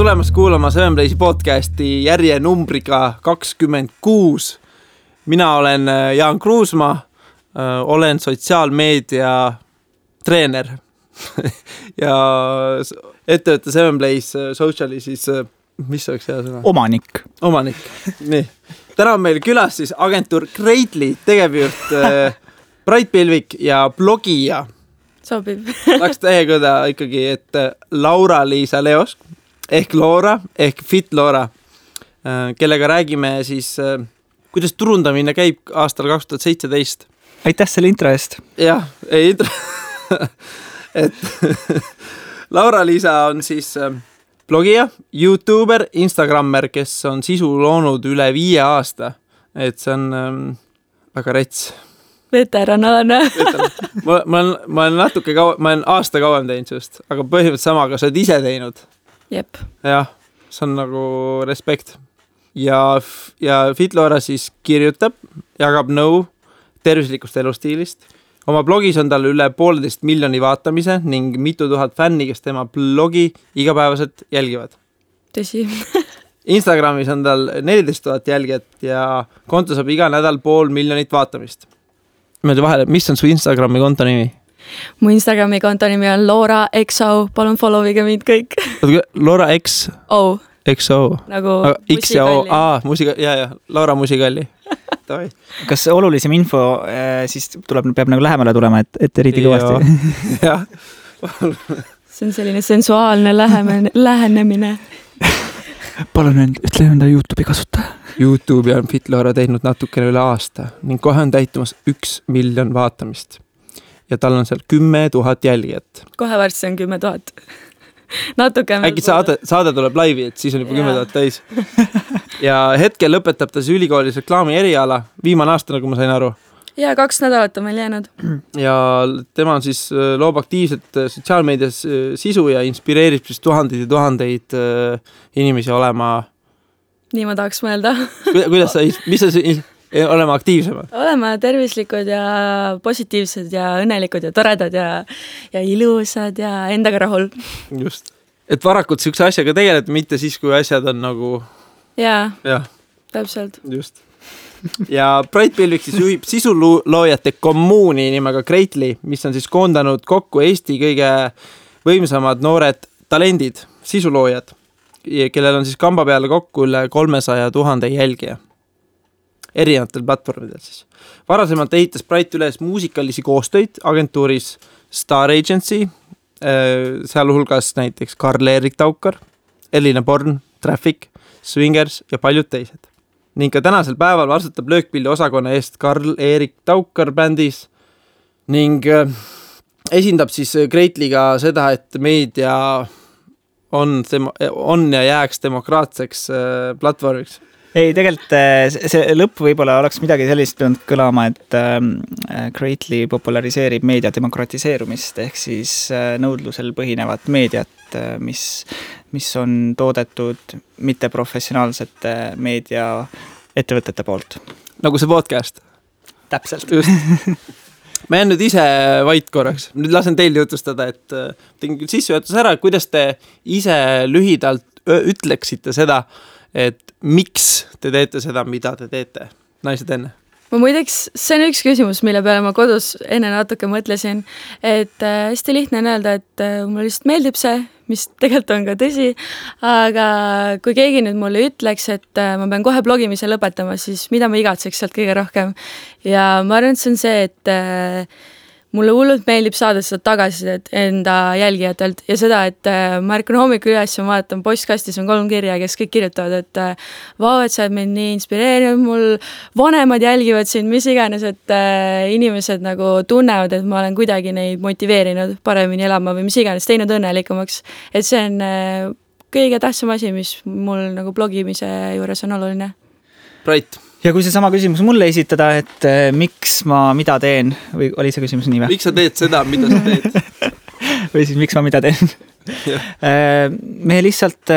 tulemast kuulama Seven Playsi podcasti järje numbriga 26. Mina olen Jaan Kruusmaa, olen sotsiaalmeedia treener ja ettevõtte Seven Plays Sociali siis, mis oleks hea sõna? Omanik, nii. Täna on meil külas siis agentuur Greatly tegevjuht Brait Pilvik ja blogija. Sobib. Tahaks tähegõda ikkagi, et Laura-Liisa Leosk ehk Laura, ehk Fit Laura, kellega räägime siis, kuidas turundamine käib aastal 2017. Aitäh selle intro eest. Jah, intro. Et Laura-Liisa on siis blogija, YouTuber, Instagrammer, kes on sisu loonud üle 5 aasta. Et see on väga rets. Veteranaalne. Ma olen natuke ma olen aasta kauem teinud just, aga põhimõtteliselt sama, aga sa oled ise teinud. Jep. Jah, see on nagu respekt. Ja Fitlora siis kirjutab, jagab nõu tervislikust elustiilist. Oma blogis on tal üle 1,5 miljoni vaatamise ning mitu tuhat fänni, kes tema blogi igapäevaselt jälgivad. Tõsi. Instagramis on tal 14 000 jälgijat ja konto saab iga nädal 500 000 vaatamist. Mis on su Instagrami konto nimi? Mu Instagrami konto nimi on Laura XO. Palun followige mind kõik. Laura XO. Nagu X ja O. Ja, Laura Musikalli. Kas olulisem info siis peab nagu lähemale tulema, et eriti kõvasti? Jah. See on selline sensuaalne lähenemine. Palun ütle enda YouTube'i kasutaja. YouTube'i on Fitlora teinud natukene üle aasta ning kohe on täitumas 1 miljon vaatamist. Ja tal on seal 10 000 jälgijat. Kohe varsti on 10 000. Natuke. Äkki saade tuleb laivi, et siis on juba 10 000 täis. Ja hetkel lõpetab ta siis ülikoolis reklaami eriala. Viimane aasta, nagu ma sain aru. Ja 2 nädalat on meil jäänud. Ja tema on siis loob aktiivselt sotsiaalmeedias sisu ja inspireerib siis tuhandeid inimesi olema. Nii ma tahaks mõelda. Mis sa olema aktiivsemad? Olema tervislikud ja positiivsed ja õnnelikud ja toredad ja ilusad ja endaga rahul. Just. Et varakult sihukese asjaga tegeled, mitte siis, kui asjad on nagu... Jaa. Täpselt. Just. Ja Brait Pilvik siis juhib sisuloojate kommuuni nimega Greatly, mis on siis koondanud kokku Eesti kõige võimsamad noored talendid, sisuloojad, kellel on siis kamba peale kokku üle 300 000 jälgija. Erinevatel platvormidel siis. Varasemalt ehitas Brait üles muusikalisi koostöid agentuuris Star Agency, sealhulgas näiteks Karl-Erik Taukar, Elina Born, Traffic, Swingers ja paljud teised. Ning ka tänasel päeval vastutab löökpilli osakonna eest Karl-Erik Taukar bändis ning esindab siis Greatlyga seda, et meedia on ja jääks demokraatseks platvormiks. Ei, tegelikult see lõpp võib-olla oleks midagi sellist pidanud kõlama, et Greatly populariseerib meedia demokratiseerumist ehk siis nõudlusel põhinevat meediat, mis on toodetud mitteprofessionaalsete meediaettevõtete poolt. Nagu see podcast. Täpselt. Ma jään nüüd ise vait korraks. Nüüd lasen teil jutustada, et tegin küll sissejuhatus ära, kuidas te ise lühidalt ütleksite seda, et miks te teete seda, mida te teete, naised enne? Ma muideks, see on üks küsimus, mille peale ma kodus enne natuke mõtlesin, et hästi lihtne on öelda, et mulle lihtsalt meeldib see, mis tegelikult on ka tõsi, aga kui keegi nüüd mulle ütleks, et ma pean kohe blogimise lõpetama, siis mida ma igatseks sealt kõige rohkem. Ja ma arvan, et see on see, et mulle hullult meeldib saada seda tagasisidet enda jälgijatelt ja seda, et ma ärkan hommikul üles ja vaatan postkastis on 3 kirja, kes kõik kirjutavad, et vau, et sa oled mind nii inspireerinud, mul vanemad jälgivad sind, mis iganes, et inimesed nagu tunnevad, et ma olen kuidagi neid motiveerinud paremini elama või mis iganes, teinud õnnelikumaks. Et see on kõige tähtsam asi, mis mul nagu blogimise juures on oluline. Brait. Ja kui see sama küsimus mulle esitada, et miks ma mida teen, või oli see küsimus nii või? Miks sa teed seda, mida sa teed? Või siis miks ma mida teen? Me lihtsalt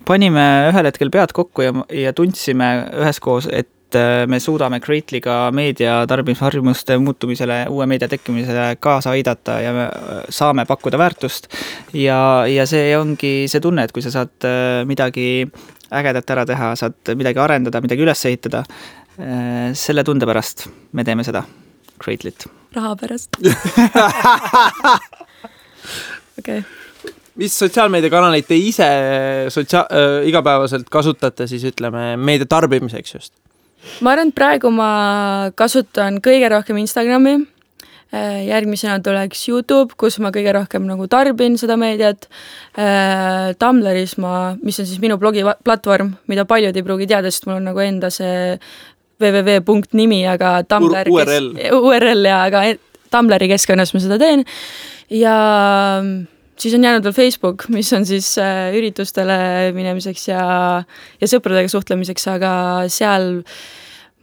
panime ühel hetkel pead kokku ja tundsime üheskoos, et me suudame Greatly'ga meedia tarbimisharjumuste muutumisele, uue meedia tekkimisele kaasa aidata ja me saame pakkuda väärtust ja see ongi see tunne, et kui sa saad midagi ägedat ära teha, saad midagi arendada, midagi üles ehitada, selle tunde pärast me teeme seda Greatly't. Raha pärast. Okay. Mis sotsiaalmeediakanaleid te ise igapäevaselt kasutate siis ütleme meedia tarbimiseks just? Ma arvan, et praegu ma kasutan kõige rohkem Instagrami, järgmisena tuleks YouTube, kus ma kõige rohkem nagu tarbin seda meediat, Tumblris mis on siis minu blogiplatvorm, mida paljud ei pruugi teada, sest mul on nagu enda see www.nimi, aga Tumblr URL ja aga Tumblri keskkonnas ma seda teen ja siis on jäänud veel Facebook, mis on siis üritustele minemiseks ja sõpradega suhtlemiseks, aga seal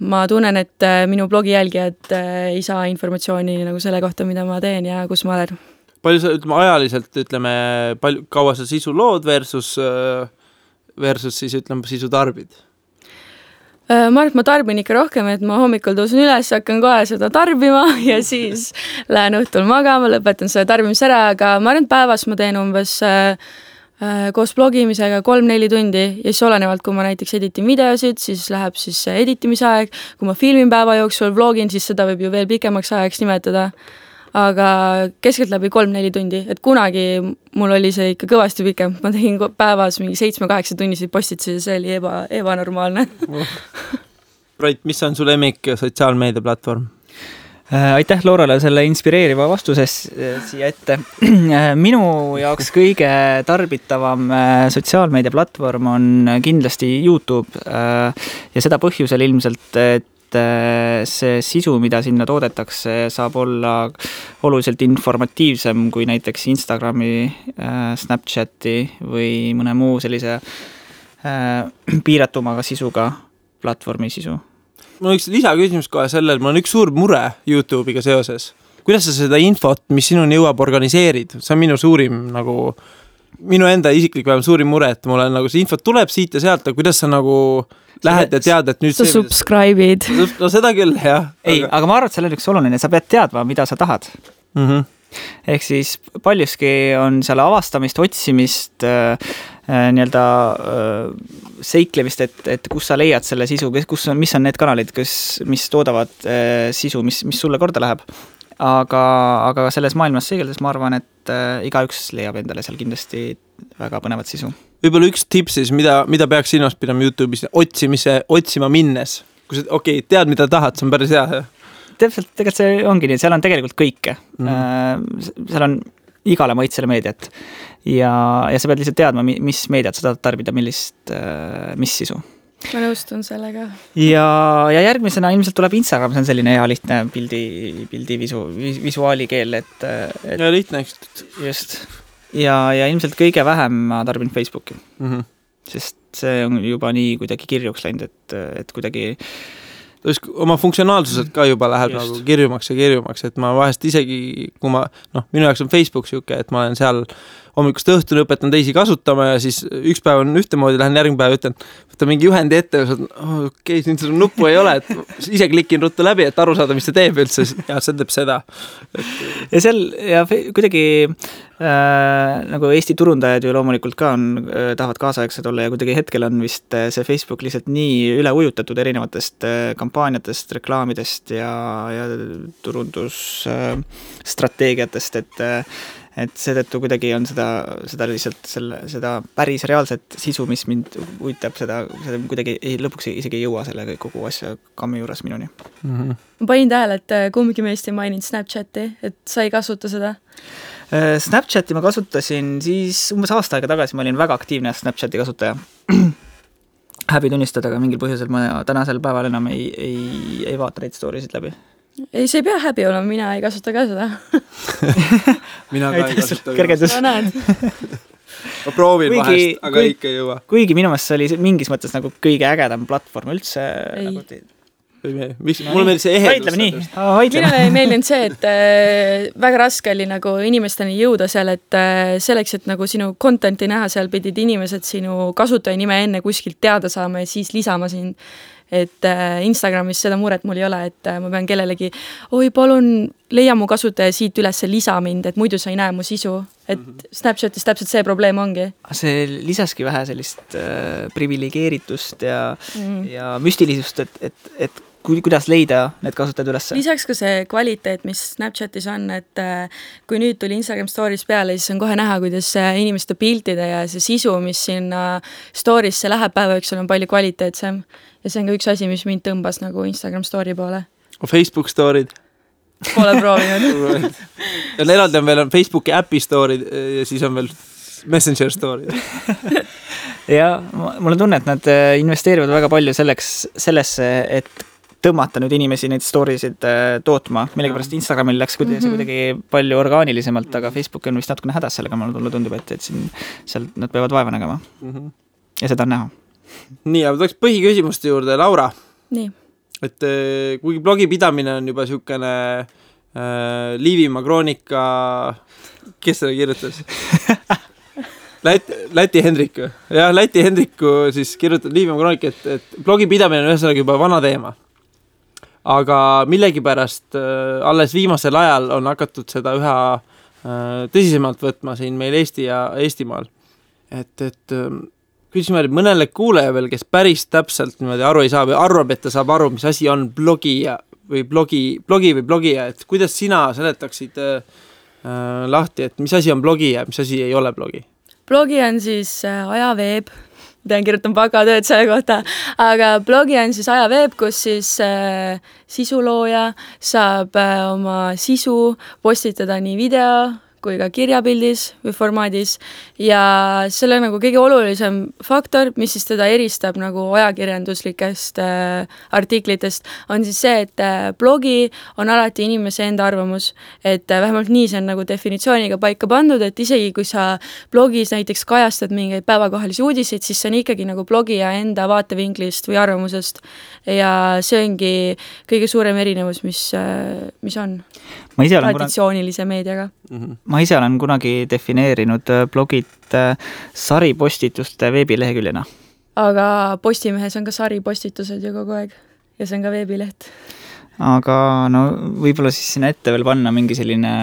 ma tunnen, et minu blogi jälgijad ei saa informatsiooni nagu selle kohta, mida ma teen ja kus ma olen. Palju sa ajaliselt kaua sa sisu lood versus siis sisu tarbid? Ma arvan, et ma tarbin ikka rohkem, et ma hommikul tõusen üles, hakkan kohe seda tarbima ja siis lähen õhtul magama, lõpetan selle tarbimise ära, aga ma arvan, et päevas ma teen umbes koos blogimisega 3-4 tundi ja siis olenevalt, kui ma näiteks editin videosid, siis läheb siis editimise aeg, kui ma filmin päeva jooksul vlogin, siis seda võib ju veel pikemaks ajaks nimetada, aga keskeltläbi 3-4 tundi, et kunagi mul oli see ikka kõvasti pikem, ma tegin päevas mingi 7-8 tunniseid postitusi ja see oli ebanormaalne. Brait, mis on su lemmik sotsiaalmeedia platvorm? Aitäh Laurale selle inspireeriva vastuses siia ette. Minu jaoks kõige tarbitavam sotsiaalmeedia platvorm on kindlasti YouTube ja seda põhjusel ilmselt, et see sisu, mida sinna toodetakse, saab olla oluliselt informatiivsem kui näiteks Instagrami, Snapchati või mõne muu sellise piiratumaga sisuga platvormi sisu. Mul on üks lisaküsimus kohe sellel, mul on üks suur mure YouTube'iga seoses. Kuidas sa seda infot, mis sinuni jõuab, organiseerid? See on minu suurim minu enda isiklik vähem suurim mure, et mul on see infot tuleb siit ja sealt, aga kuidas sa lähed ja tead, et nüüd sa subscribe'id. No seda küll, jah. Aga ma arvan, et seal on üks oluline, sa pead teadma, mida sa tahad. Ehk siis paljuski on seal avastamist, otsimist, seiklemist, et kus sa leiad selle sisu, mis on need kanalid, mis toodavad sisu, mis sulle korda läheb. Aga selles maailmas seegeldes ma arvan, et igaüks leiab endale seal kindlasti väga põnevat sisu. Võib-olla üks tips siis, mida peaks silmas pidama YouTube'is otsima minnes? Kui sa tead, mida tahad, see on päris hea. Täpselt, tegelikult see ongi nii, seal on tegelikult kõike. Seal on igale maitsele meediat ja sa pead lihtsalt teadma, mis meediat sa tahad tarbida, mis sisu. Ma nõustun sellega. Ja järgmisena ilmselt tuleb Instagram, see on selline hea lihtne pildi visuaali keel, ja lihtne, eks. Just. Ja ilmselt kõige vähem ma tarbin Facebooki. Sest see on juba nii kuidagi kirjuks läinud, et kuidagi oma funktsionaalsuselt ka juba läheb nagu kirjumaks, et ma vahest isegi, kui minu jaoks on Facebook siuke, et ma olen seal hommikust õhtuni õpetan teisi kasutama ja siis üks päev on ühtemoodi, lähen järgmine päev ütlen, võtta mingi juhendi ette ja nüüd seda nuppu ei ole, et ise klikin ruttu läbi, et aru saada, mis see teeb üldse ja see teeb seda. Ja seal kuidagi nagu Eesti turundajad ju loomulikult ka tahavad kaasaegsed olla ja kuidagi hetkel on vist see Facebook lihtsalt nii üle ujutatud erinevatest kampaaniatest, reklaamidest ja turundusstrateegiatest, et seetõttu kuidagi on seda lihtsalt seda päris reaalset sisu, mis mind uitab, seda kuidagi lõpuks isegi ei jõua selle kogu asja kammi juures minuni. Ma panin tähele, et kumbki meist ei maininud Snapchati, et sa ei kasuta seda? Snapchati ma kasutasin siis umbes aasta aega tagasi, ma olin väga aktiivne Snapchati kasutaja. Häbi tunnistada, aga mingil põhjusel ma tänasel päeval enam ei vaata neid storysid läbi. Ei, see ei pea häbi olema, mina ei kasuta ka seda. Mina ka ei kasuta. Kergendus. No näed. Ma proovin vahest, aga ikka ei jõua. Kuigi minu meelest see oli mingis mõttes nagu kõige ägedam platvorm üldse. Mulle meeldis see ehedus. Minule ei meeldinud see, et väga raske oli nagu inimesteni jõuda seal, et selleks, et nagu sinu contenti näha, seal pidid inimesed sinu kasutaja nime enne kuskilt teada saama ja siis lisama sind. et Instagramis seda muret mul ei ole, et ma pean kellelegi, oi palun leia mu kasutaja siit üles, lisa mind, et muidu sa ei näe mu sisu, et Snapchatis täpselt see probleem ongi. See lisaski vähe sellist privilegeeritust ja müstilisust, et kuidas leida need kasutajad üles? Lisaks ka see kvaliteet, mis Snapchatis on, et kui nüüd tuli Instagram Stories peale, siis on kohe näha, kuidas inimeste piltide ja see sisu, mis sinna Storiesse läheb päeva üks, on palju kvaliteetsem. Ja see on ka üks asi, mis mind tõmbas nagu Instagram Story poole. Facebook Story'd? Pole proovinud. Ja eraldi on veel Facebooki äpi Story'd ja siis on veel Messenger Story'd. Ja mulle tunne, et nad investeerivad väga palju sellesse, et tõmmata nüüd inimesi neid storiesid tootma. Millegipärast Instagramil läks kuidagi palju orgaanilisemalt, aga Facebook on vist natukene hädas sellega, mulle tundub, et siin seal nad peavad vaeva nägema. Ja seda on näha. Nii, aga tuleks põhiküsimuste juurde, Laura. Nii. Et kuigi blogi pidamine on juba siukene Liivimaa kroonika, kes seda kirjutas? Läti Hendriku. Jah, Läti Hendriku siis kirjutab Liivimaa kroonika, et blogi pidamine on ühesõnaga juba vana teema. Aga millegipärast alles viimasel ajal on hakatud seda üha tõsisemalt võtma siin meil Eesti ja Eestimaal. Et küsime mõnele kuuleja veel, kes päris täpselt niimoodi aru ei saa või arvab, et ta saab aru, mis asi on blogija, et kuidas sina seletaksid lahti, et mis asi on blogi ja mis asi ei ole blogi? Blogi on siis ajaveeb, kirjutan bakatööd selle kohta, aga blogi on siis ajaveeb, kus siis sisulooja saab oma sisu postitada nii video kui ka kirjapildis või formaadis ja selle nagu kõige olulisem faktor, mis siis teda eristab nagu ajakirjanduslikest artiklitest, on siis see, et blogi on alati inimese enda arvamus, et vähemalt nii see on nagu definitsiooniga paika pandud, et isegi kui sa blogis näiteks kajastad mingeid päevakohalisi uudiseid, siis see on ikkagi nagu blogija enda vaatevinklist või arvamusest ja see ongi kõige suurem erinevus, mis on traditsioonilise meediaga. Ma ise olen kunagi defineerinud blogid saripostituste veebileheküljena. Aga Postimehes on ka saripostitused ju kogu aeg ja see on ka veebileht. Aga no võib-olla siis sinna ette veel panna mingi selline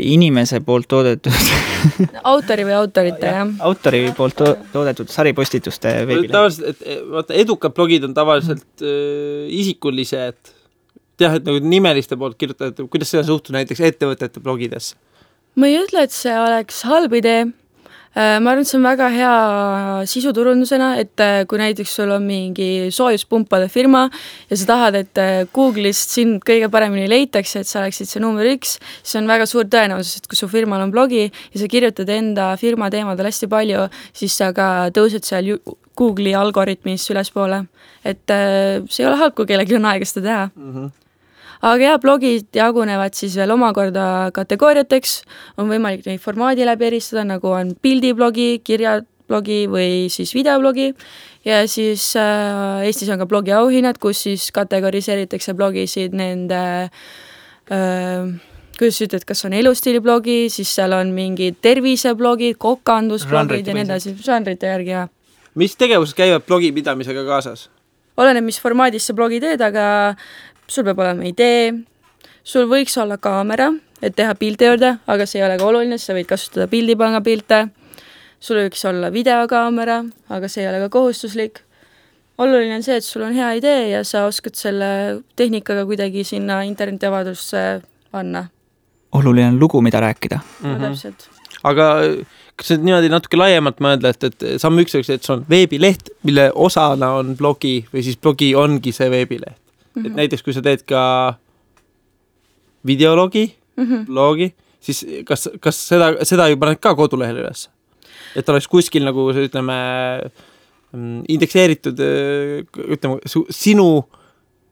inimese poolt toodetud autori või autorite, jah. Autori poolt toodetud saripostituste veebileht. Tavaliselt, edukad blogid on tavaliselt isikulised, jah, et nagu nimeliste poolt kirjutada, kuidas seda suhtu näiteks ettevõtete blogidesse? Ma ei ütle, et see oleks halb idee. Ma arvan, et see on väga hea sisuturundusena, et kui näiteks sul on mingi soojuspumpade firma ja sa tahad, et Google'ist sind kõige paremini leitakse, et sa oleksid see number 1, siis on väga suur tõenäosus, et kui su firmal on blogi ja sa kirjutad enda firma teemadel hästi palju, siis sa ka tõused seal Google'i algoritmis ülespoole. Et see ei ole halb, kui kellelgi on aega seda teha. Aga jah, blogid jagunevad siis veel omakorda kategooriateks, on võimalik neid formaadi läbi eristada, nagu on pildiblogi, kirjablogi või siis videoblogi ja siis Eestis on ka blogi auhinnad, kus siis kategoriseeritakse blogisid nende, kuidas ütled, kas on elustiiliblogi, siis seal on mingid terviseblogid, kokandusblogid ja nii edasi, žanrite järgi, jah. Mis tegevused käivad blogi pidamisega kaasas? Oleneb, mis formaadis sa blogi teed, aga sul peab olema idee, sul võiks olla kaamera, et teha pildi juurde, aga see ei ole ka oluline, sa võid kasutada pildipanga pilte. Sul võiks olla videokaamera, aga see ei ole ka kohustuslik. Oluline on see, et sul on hea idee ja sa oskad selle tehnikaga kuidagi sinna internetiavadusse panna. Oluline on lugu, mida rääkida. No, täpselt. Aga kas nüüd niimoodi natuke laiemalt mõelda, et samm üks, et see on veebileht, mille osana on blogi või siis blogi ongi see veebileht. Et näiteks, kui sa teed ka videologi, blogi, siis kas seda ju paned ka kodulehel üles? Et oleks kuskil nagu, ütleme, indekseeritud, ütleme, sinu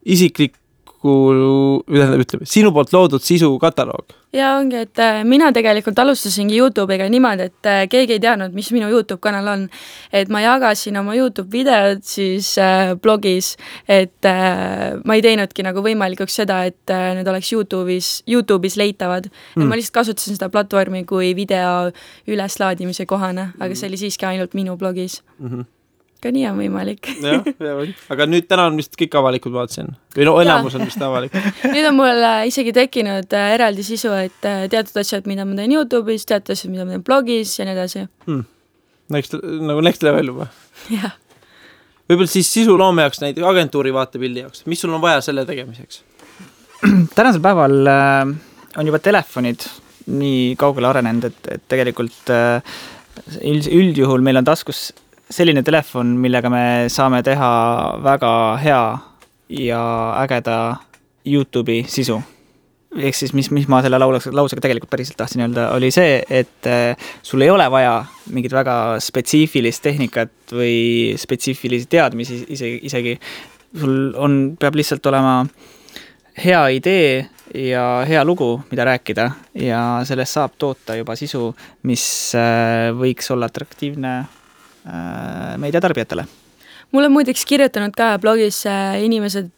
isiklik sinu poolt loodud sisu kataloog. Ja ongi, et mina tegelikult alustasingi YouTube'iga niimoodi, et keegi ei teadnud, mis minu YouTube kanal on. Et ma jagasin oma YouTube videod siis blogis, et ma ei teinudki nagu võimalikuks seda, et need oleks YouTube'is leitavad. Et ma lihtsalt kasutasin seda platvormi kui video üleslaadimise kohane, aga see oli siiski ainult minu blogis. ka nii on võimalik. jah, aga nüüd täna on vist kõik avalikud, vaatasin. Või no enamus on vist avalik. Nüüd on mul isegi tekkinud eraldi sisu, et teatud asjad, mida ma teen YouTube'is, teatud asjad, mida ma teen blogis ja nii edasi. Nagu next level juba. Jah. Võib-olla siis sisuloome jaoks näiteks agentuuri vaatepildi jaoks. Mis sul on vaja selle tegemiseks? Tänasel päeval on juba telefonid nii kaugele arenenud, et tegelikult üldjuhul meil on taskus selline telefon, millega me saame teha väga hea ja ägeda YouTube'i sisu. Ehk siis, mis ma selle lausega tegelikult päriselt tahtsin öelda, oli see, et sul ei ole vaja mingit väga spetsiifilist tehnikat või spetsiifilisi teadmisi isegi. Sul peab lihtsalt olema hea idee ja hea lugu, mida rääkida ja sellest saab toota juba sisu, mis võiks olla atraktiivne meediatarbijatele. Mul on muideks kirjutanud ka blogis inimesed,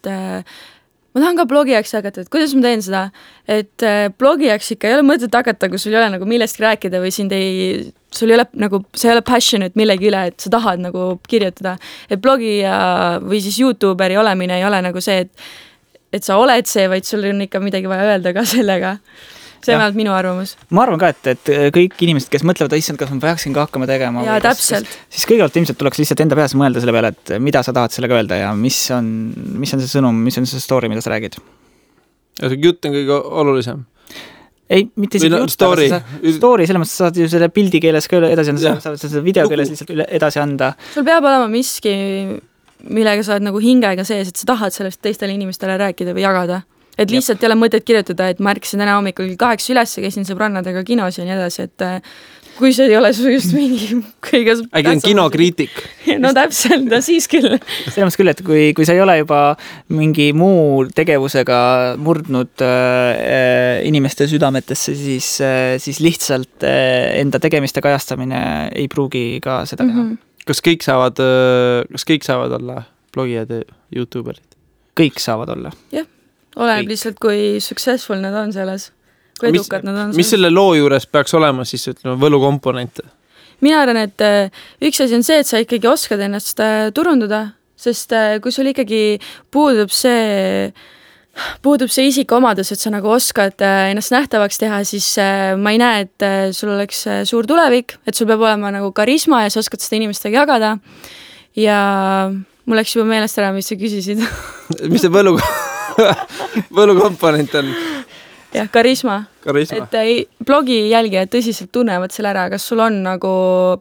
ma tahan ka blogijaks hakata, et kuidas ma teen seda, et blogijaks ikka ei ole mõtet hakata, kui sul ei ole nagu millestki rääkida või sul ei ole nagu, see ei ole passionate millegi üle, et sa tahad nagu kirjutada. Et blogija või siis YouTuberi olemine ei ole nagu see, et sa oled see, vaid sul on ikka midagi vaja öelda ka sellega. See on vähemalt minu arvamus. Ma arvan ka, et kõik inimesed, kes mõtlevad, issand, kas ma peaksin ka hakkama tegema. Ja täpselt. Siis kõigepealt ilmselt tuleks lihtsalt enda peas mõelda selle peale, et mida sa tahad sellega öelda ja mis on see sõnum, mis on see story, mida sa räägid. Ja see jutt on kõige olulisem. Ei, mitte isegi jutt, story, selles mõttes saad ju selle pildi keeles ka edasi anda, saad seda video keeles lihtsalt edasi anda. Sul peab olema miski, millega sa oled nagu hingega sees, et sa tahad sellest teistele inimestele rääkida või jagada. Et lihtsalt ei ole mõtet kirjutada, et ma ärkasin täna hommikul 8 üles ja käisin sõbrannadega kinos ja nii edasi, et kui see ei ole su just mingi kõige... Äkki on kinokriitik. No täpselt, siis küll. Selles mõttes küll, et kui sa ei ole juba mingi muu tegevusega murdnud inimeste südametesse, siis lihtsalt enda tegemiste kajastamine ei pruugi ka seda teha. Kas kõik saavad olla blogijad ja YouTuberid? Kõik saavad olla. Jah. Oleneb lihtsalt, kui successful nad on selles, kui edukad nad on selles. Mis selle loo juures peaks olema siis, ütleme, võlukomponente? Mina arvan, et üks asi on see, et sa ikkagi oskad ennast turundada, sest kui sul ikkagi puudub see isikuomadus, et sa nagu oskad ennast nähtavaks teha, siis ma ei näe, et sul oleks suur tulevik, et sul peab olema nagu karisma ja sa oskad seda inimestega jagada ja mul läks juba meelest ära, mis sa küsisid. Mis see võlukomponent on? Jah, karisma. Et blogi jälgijad tõsiselt tunnevad selle ära, kas sul on nagu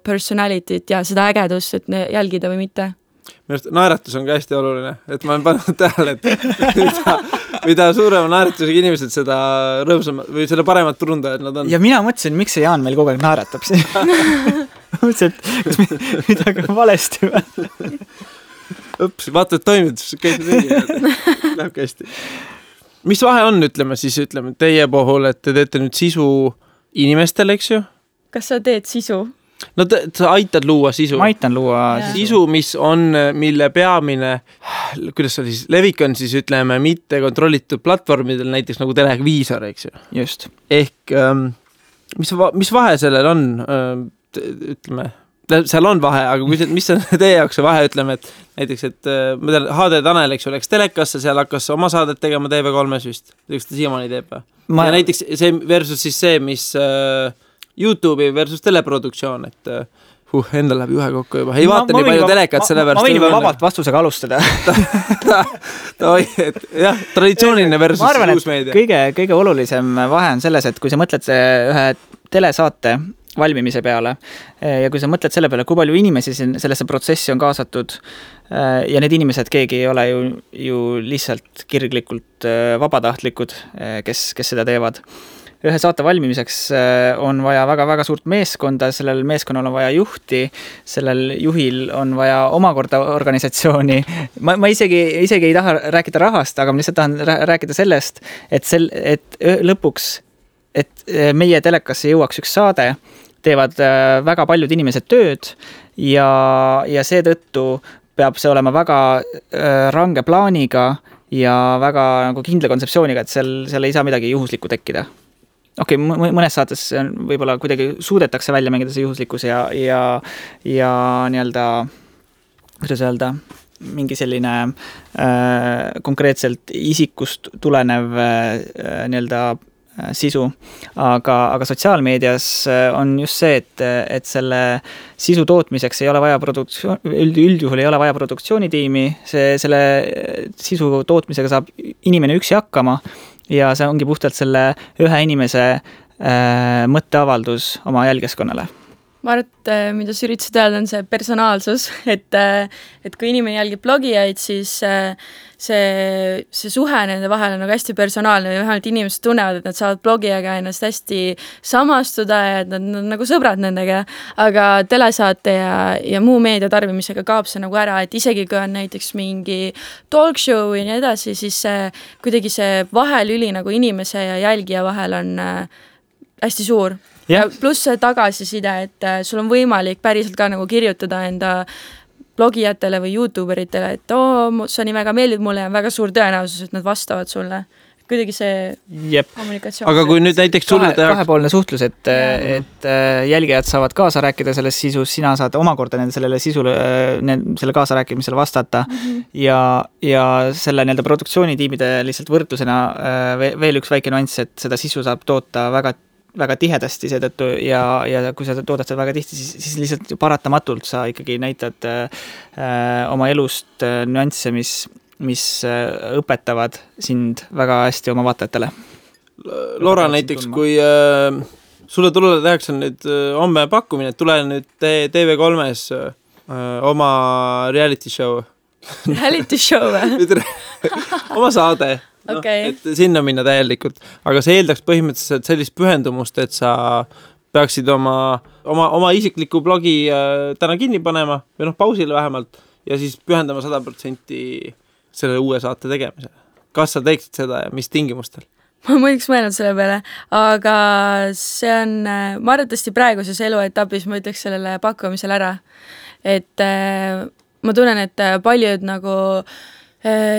personalityt ja seda ägedust, et jälgida või mitte. Naeratus on ka hästi oluline, et ma olen pannud tähele, et mida suurema naeratusega inimesed seda rõõmsama või seda paremat turundajad nad on. Ja mina mõtlesin, miks see Jaan meil kogu aeg naeratab siin. Mõtlesin, et kas midagi on valesti või? Vaata, et toimid, käid läheb hästi. Mis vahe on, ütleme teie puhul, et te teete nüüd sisu inimestele, eks ju? Kas sa teed sisu? No sa aitad luua sisu. Ma aitan luua sisu, mille peamine, kuidas sa siis, levik on siis, ütleme, mitte kontrollitud platvormidel, näiteks nagu televiisor, eks ju? Just. Ehk, mis vahe sellel on, ütleme, seal on vahe, aga mis on teie jaoks see vahe, ütleme, et näiteks, et ma tean, HD Tanel, eks ju, läks telekasse, seal hakkas oma saadet tegema TV3-s vist, eks ta siiamaani teeb. Ja näiteks see versus siis see, mis YouTube'i versus teleproduktsioon, et endal läheb ühe kokku juba. Ei vaata nii palju telekat selle versus. Ma võin juba vabalt vastusega alustada. Jah, traditsiooniline versus uus meedia. Kõige olulisem vahe on selles, et kui sa mõtled ühe telesaate valmimise peale ja kui sa mõtled selle peale, kui palju inimesi sellesse protsessi on kaasatud ja need inimesed, keegi ei ole ju lihtsalt kirglikult vabatahtlikud, kes seda teevad. Ühe saate valmimiseks on vaja väga-väga suurt meeskonda, sellel meeskonnal on vaja juhti, sellel juhil on vaja omakorda organisatsiooni. Ma isegi ei taha rääkida rahast, aga ma lihtsalt tahan rääkida sellest, et lõpuks, et meie telekasse jõuaks üks saade, teevad väga paljud inimesed tööd ja seetõttu peab see olema väga range plaaniga ja väga nagu kindla kontseptsiooniga, et seal ei saa midagi juhuslikku tekkida. Okei, mõnes saates võib-olla kuidagi suudetakse välja mängida see juhuslikkus ja nii-öelda kuidas öelda, mingi selline konkreetselt isikust tulenev nii-öelda sisu, aga sotsiaalmeedias on just see, et selle sisu tootmiseks ei ole vaja üldjuhul ei ole vaja produktsioonitiimi, selle sisu tootmisega saab inimene üksi hakkama ja see ongi puhtalt selle ühe inimese mõtteavaldus oma jälgijaskonnale. Ma arvan, et mida sa üritasid öelda, on see personaalsus, et kui inimene jälgib blogijaid, siis see suhe nende vahel on nagu hästi personaalne ja vähemalt inimesed tunnevad, et nad saavad blogijaga ennast hästi samastuda ja et nad on nagu sõbrad nendega, aga telesaate ja muu meedia tarbimisega kaob see nagu ära, et isegi kui on näiteks mingi talk show ja nii edasi, siis kuidagi see vahelüli nagu inimese ja jälgija vahel on hästi suur. Ja pluss see tagasiside, et sul on võimalik päriselt ka nagu kirjutada enda blogijatele või YouTuberitele, et sa nii väga meeldid mulle ja on väga suur tõenäosus, et nad vastavad sulle. Kuidagi see kommunikatsioon. Aga kui nüüd näiteks kahepoolne suhtlus, et jälgijad saavad kaasa rääkida selles sisus, sina saad omakorda sellele sisule, selle kaasa rääkimisele vastata ja selle nii-öelda produktsioonitiimide lihtsalt võrdlusena veel üks väike nüanss, et seda sisu saab toota väga tihedasti seetõttu ja kui sa toodad seda väga tihti, siis lihtsalt paratamatult sa ikkagi näitad oma elust nüansse, mis õpetavad sind väga hästi oma vaatajatele. Laura näiteks, kui sulle tehakse nüüd homme pakkumine, tule nüüd TV3-s oma reality show. Reality show või? Oma saade. Et sinna minna täielikult, aga see eeldaks põhimõtteliselt sellist pühendumust, et sa peaksid oma isikliku blogi täna kinni panema või pausile vähemalt ja siis pühendama 100% selle uue saate tegemisele. Kas sa teeksid seda ja mis tingimustel? Ma muiduks mõelnud selle peale, aga see on, ma arvatavasti praeguses eluetapis ma ütleks sellele pakkumisele ära, et ma tunnen, et paljud nagu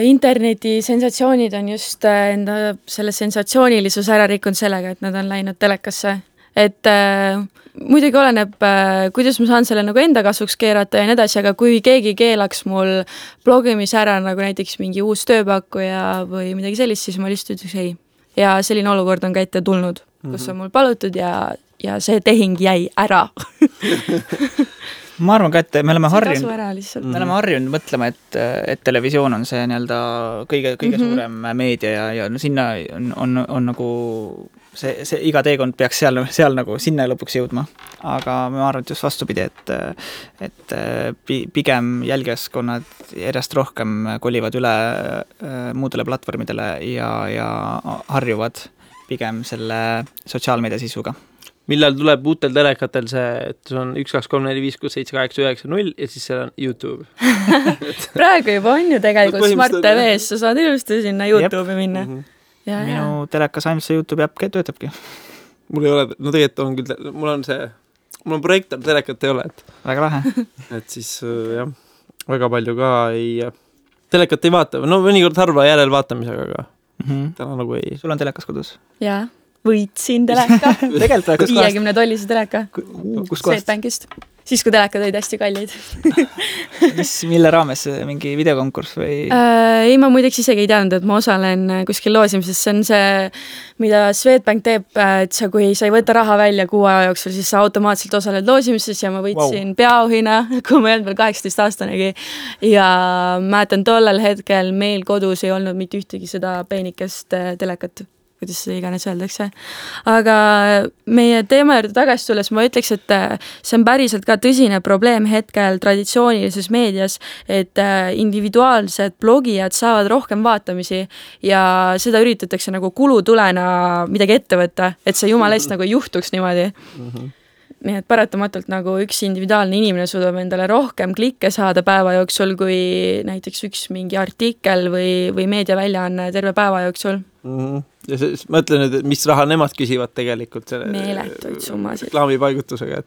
interneti sensatsioonid on just enda selle sensatsioonilisus ära rikkunud sellega, et nad on läinud telekasse. Et muidugi oleneb, kuidas ma saan selle nagu enda kasvuks keerata ja nii edasi, aga kui keegi keelaks mul blogimis ära nagu näiteks mingi uus tööpakkuja või midagi sellist, siis ma lihtsalt ütleks ei. Ja selline olukord on ka ette tulnud, kus on mul palutud ja see tehing jäi ära. Ma arvan ka, et me oleme harjunud mõtlema, et televisioon on see nii-öelda kõige suurem meedia ja sinna on nagu see iga teekond peaks seal nagu sinna lõpuks jõudma. Aga ma arvan, et just vastupidi, et pigem jälgijaskonnad järjest rohkem kolivad üle muudele platvormidele ja harjuvad pigem selle sotsiaalmeedia sisuga. Millal tuleb uutel telekatel see, et on 1, 2, 3, 4, 5, 6, 7, 8, 9, 0 ja siis seal on YouTube. Praegu juba on ju tegelikult Smart TV-s, sa saad ilusti sinna YouTube'i minna. Minu telekas ainult see YouTube äpp töötabki. Mul ei ole, no tegelikult on küll, mul on projektor, telekat ei ole. Väga lahe. Et siis jah, väga palju ka telekat ei vaata, no mõnikord harva järel vaatamisega, aga täna nagu ei. Sul on telekas kodus? Jaa. Võitsin teleka. 50-tollise teleka. Kus kohast? Swedbankist. Siis, kui telekad olid hästi kallid. Mille raames? Mingi videokonkurss või? Ei, ma muideks isegi ei teadnud, et ma osalen kuskil loosimises. See on see, mida Swedbank teeb, et kui sa ei võta raha välja 6 aja jooksul, siis sa automaatselt osaled loosimises ja ma võitsin peaauhina, kui ma ei olnud veel 18-aastanegi. Ja mäletan tollel hetkel meil kodus ei olnud mitte ühtegi seda peenikest telekat. Kuidas see iganes öeldakse. Aga meie teema juurde tagasi tulles ma ütleks, et see on päriselt ka tõsine probleem hetkel traditsioonilises meedias, et individuaalsed blogijad saavad rohkem vaatamisi ja seda üritatakse nagu kulutulena midagi ette võtta, et see jumala eest nagu juhtuks niimoodi. Nii et paratamatult nagu üks individuaalne inimene suudab endale rohkem klikke saada päeva jooksul, kui näiteks üks mingi artikkel või meediaväljaanne terve päeva jooksul. Ja ma ütlen nüüd, et mis raha nemad küsivad tegelikult selle meeletuid summasid reklaamipaigutusega,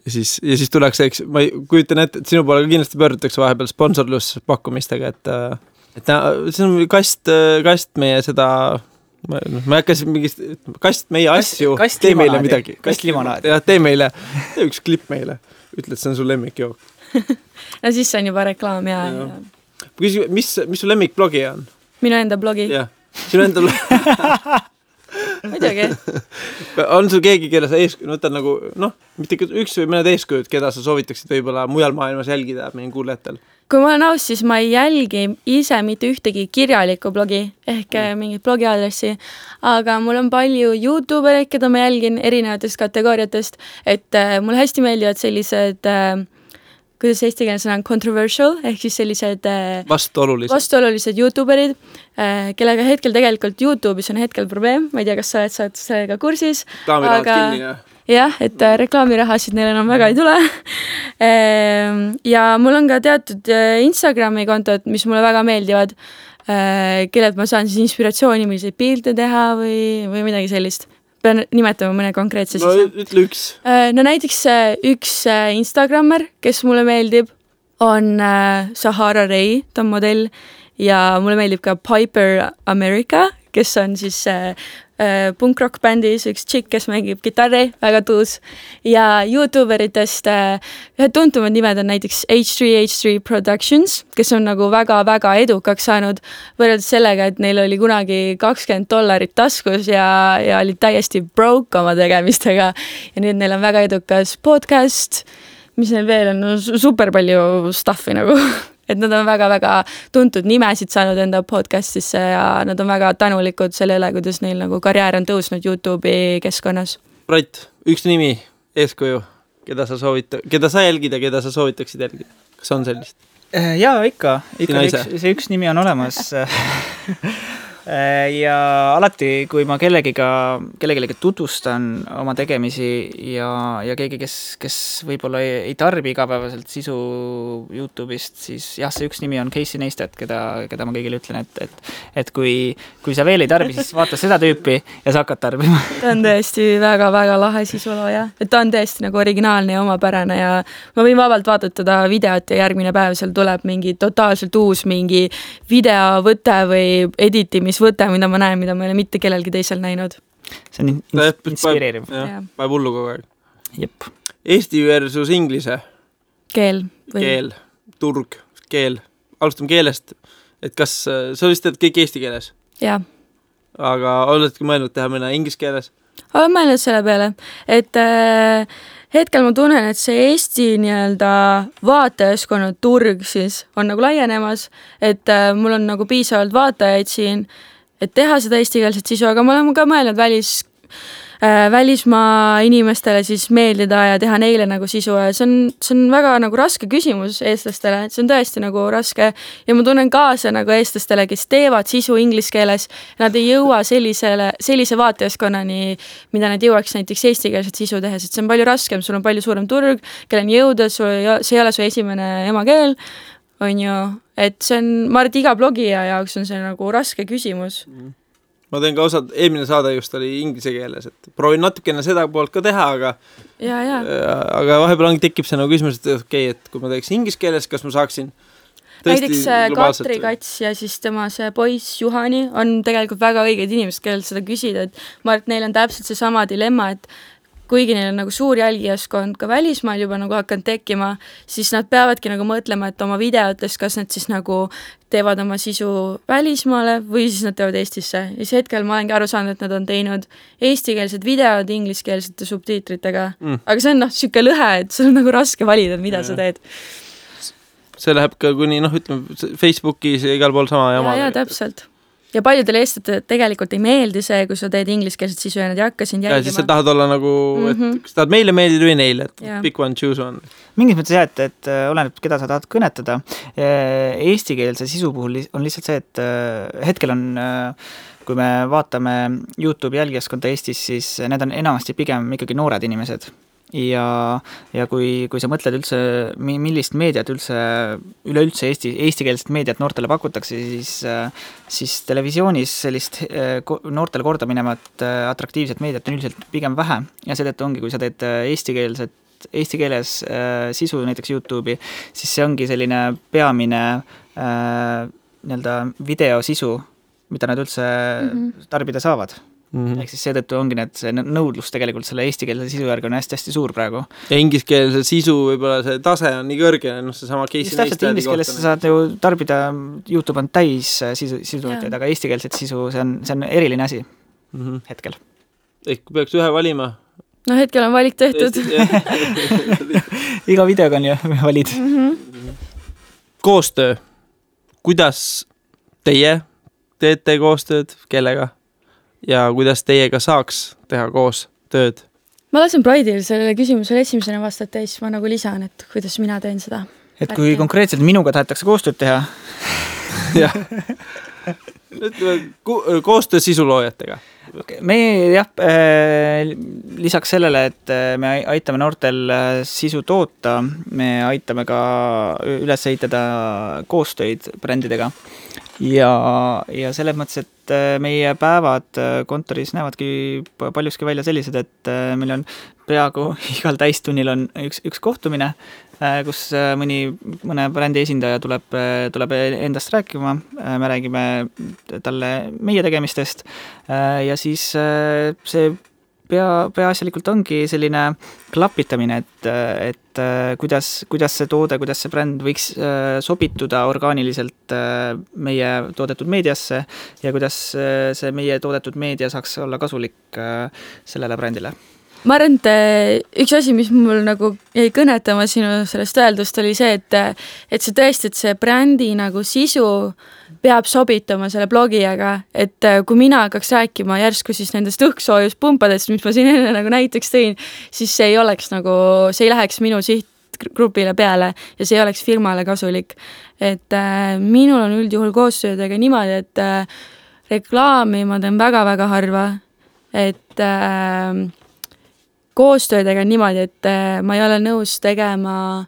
ja siis tuleks, eks, ma kujutan ette, et sinu poole kindlasti pöördutakse vahepeal sponsorluspakkumistega, et see on kast meie seda ma hakkasin mingist kast meie asju, tee meile midagi. Kast limonaadi. Ja tee meile, üks klipp meile, ütle, et see on sul lemmikjook. no siis see on juba reklaam ja. Mis su lemmikblogi on? Minu enda blogi? Jah, sinu enda blogi. Muidugi. On sul keegi, kelle sa võtad nagu, mitte üks või mõned eeskujud, keda sa soovitaksid võib-olla mujal maailmas jälgida meie kuulajatel? Kui ma olen aus, siis ma ei jälgi ise mitte ühtegi kirjalikku blogi ehk mingit blogiaadressi, aga mul on palju YouTubereid, keda ma jälgin erinevatest kategooriatest, et mulle hästi meeldivad sellised, kuidas eesti keeles on controversial, ehk siis sellised vastuolulised YouTuberid, kellega hetkel tegelikult YouTube'is on hetkel probleem, ma ei tea, kas sa oled sellega kursis, aga jah, et reklaamirahasid neil enam väga ei tule. Ja mul on ka teatud Instagrami kontod, mis mulle väga meeldivad, kellelt ma saan siis inspiratsiooni, milliseid pilte teha või midagi sellist. Pean nimetama mõne konkreetse siis. No ütle üks. No näiteks üks Instagrammer, kes mulle meeldib, on Sahara Ray, ta on modell, ja mulle meeldib ka Piper America, kes on siis punk-rock bändis üks tšikk, kes mängib kitarri, väga tuus. Ja YouTuberitest ühed tuntumad nimed on näiteks H3 Productions, kes on nagu väga-väga edukaks saanud võrreldes sellega, et neil oli kunagi $20 taskus ja olid täiesti broke oma tegemistega. Ja nüüd neil on väga edukas podcast, mis neil veel on super palju stuffi nagu. Et nad on väga-väga tuntud nimesid saanud enda podcastisse ja nad on väga tänulikud sellele, kuidas neil nagu karjäär on tõusnud YouTube'i keskkonnas. Brait, üks nimi, eeskuju, keda sa jälgid ja keda sa soovitaksid jälgida? Kas on sellist? Jaa, ikka see üks nimi on olemas. Ja alati, kui ma kellegagi tutvustan oma tegemisi ja keegi, kes võib-olla ei tarbi igapäevaselt sisu YouTube'ist, siis jah, see üks nimi on Casey Neistat, keda ma kõigile ütlen, et kui sa veel ei tarbi, siis vaata seda tüüpi ja sa hakkad tarbima. Ta on tõesti väga-väga lahe sisulooja, et ta on tõesti nagu originaalne ja omapärane ja ma võin vabalt vaadatada videot ja järgmine päev seal tuleb mingi totaalselt uus mingi videovõte või editimisvõte, mida ma näen, mida ma ei ole mitte kellelgi teisel näinud. See on inspireeriv. Päev hullu kogu aeg. Jep. Eesti versus inglise. Keel. Turg, keel. Alustame keelest. Et kas sa vist teed kõik eesti keeles? Jaa. Aga oledki mõelnud teha mõne inglise keeles? Olen mõelnud selle peale, et hetkel ma tunnen, et see Eesti nii-öelda vaatajaskonna turg siis on nagu laienemas, et mul on nagu piisavalt vaatajaid siin, et teha seda eestikeelset sisu, aga ma olen ka mõelnud välismaa inimestele siis meeldida ja teha neile nagu sisu ja see on väga nagu raske küsimus eestlastele, et see on tõesti nagu raske ja ma tunnen kaasa nagu eestlastele, kes teevad sisu inglise keeles, nad ei jõua sellise vaatajaskonnani, mida nad jõuaks näiteks eestikeelset sisu tehes, et see on palju raskem, sul on palju suurem turg, kelle on jõuda, see ei ole su esimene emakeel, on ju, et see on, ma arvan, et iga blogija jaoks on see nagu raske küsimus. Ma teen ka eelmine saade just oli inglise keeles, et proovin natukene seda poolt ka teha, aga vahepeal tekib see nagu küsimus, et okei, et kui ma teeks inglise keeles, kas ma saaksin näiteks Katri Kats ja siis tema see poiss Juhani on tegelikult väga õiged inimesed, kellel seda küsida, et ma arvan, et neil on täpselt see sama dilemma, et kuigi neil on nagu suur jälgijaskond ka välismaal juba nagu hakanud tekkima, siis nad peavadki nagu mõtlema, et oma videotes, kas nad siis nagu teevad oma sisu välismaale või siis nad teevad Eestisse. Ja siis hetkel ma olengi aru saanud, et nad on teinud eestikeelsed videod ingliskeelsete subtiitritega. Aga see on siuke lõhe, et sul on nagu raske valida, mida sa teed. See läheb ka kuni, ütleme, Facebookis ja igal pool sama jama. Ja, täpselt. Ja paljudele eestlased tegelikult ei meeldi see, kui sa teed ingliskeelset sisu ja nad ei hakka sind jälgima. Ja siis sa tahad olla nagu, et kas tahad meile meeldida või neile, et pick one, choose one. Mingis mõttes et oleneb, keda sa tahad kõnetada. Eestikeelse sisu puhul on lihtsalt see, et hetkel on, kui me vaatame YouTube jälgijaskonda Eestis, siis need on enamasti pigem ikkagi noored inimesed. Ja kui sa mõtled üldse, millist meediat üleüldse eestikeelset meediat noortele pakutakse, siis televisioonis sellist noortele korda minevat atraktiivset meediat on üldiselt pigem vähe ja seetõttu ongi, kui sa teed eesti keeles sisu näiteks YouTube'i, siis see ongi selline peamine nii-öelda videosisu, mida nad üldse tarbida saavad. Ehk siis seetõttu ongi see nõudlus tegelikult selle eestikeelse sisu järgi on hästi-hästi suur praegu. Ja ingliskeelse sisu võib-olla see tase on nii kõrge, see sama Casey Neistati. Just täpselt ingliskeeles sa saad ju tarbida, YouTube on täis sisutootjaid, aga eestikeelset sisu, see on eriline asi hetkel. Ehk peaks ühe valima? No hetkel on valik tehtud. Iga videoga on ju valid. Koostöö. Kuidas teie teete koostööd, kellega? Ja kuidas teiega saaks teha koos tööd? Ma lasen Pride'il sellele küsimusele esimesena vastata ja siis ma nagu lisan, et kuidas mina teen seda. Et kui konkreetselt minuga tahetakse koostööd teha? Jah. Koostöö sisuloojatega. Me lisaks sellele, et me aitame noortel sisu toota, me aitame ka üles ehitada koostöid brändidega ja selles mõttes, et meie päevad kontoris näevadki paljuski välja sellised, et meil on peaaegu igal täistunnil on üks kohtumine, kus mõne brändi esindaja tuleb endast rääkima, me räägime talle meie tegemistest ja siis see peaasjalikult ongi selline klapitamine, et kuidas see toode, kuidas see bränd võiks sobituda orgaaniliselt meie toodetud meediasse ja kuidas see meie toodetud meedia saaks olla kasulik sellele brändile. Ma arvan, et üks asi, mis mul nagu jäi kõnetama sinu sellest öeldust, oli see, et see tõesti, et see brändi nagu sisu peab sobitama selle blogijaga, et kui mina hakkaks rääkima järsku siis nendest õhksoojuspumpadest, mis ma siin enne nagu näiteks tõin, siis see ei oleks nagu, see ei läheks minu sihtgrupile peale ja see ei oleks firmale kasulik. Et minul on üldjuhul koostöödega niimoodi, et reklaami ma teen väga-väga harva, et koostöödega niimoodi, et ma ei ole nõus tegema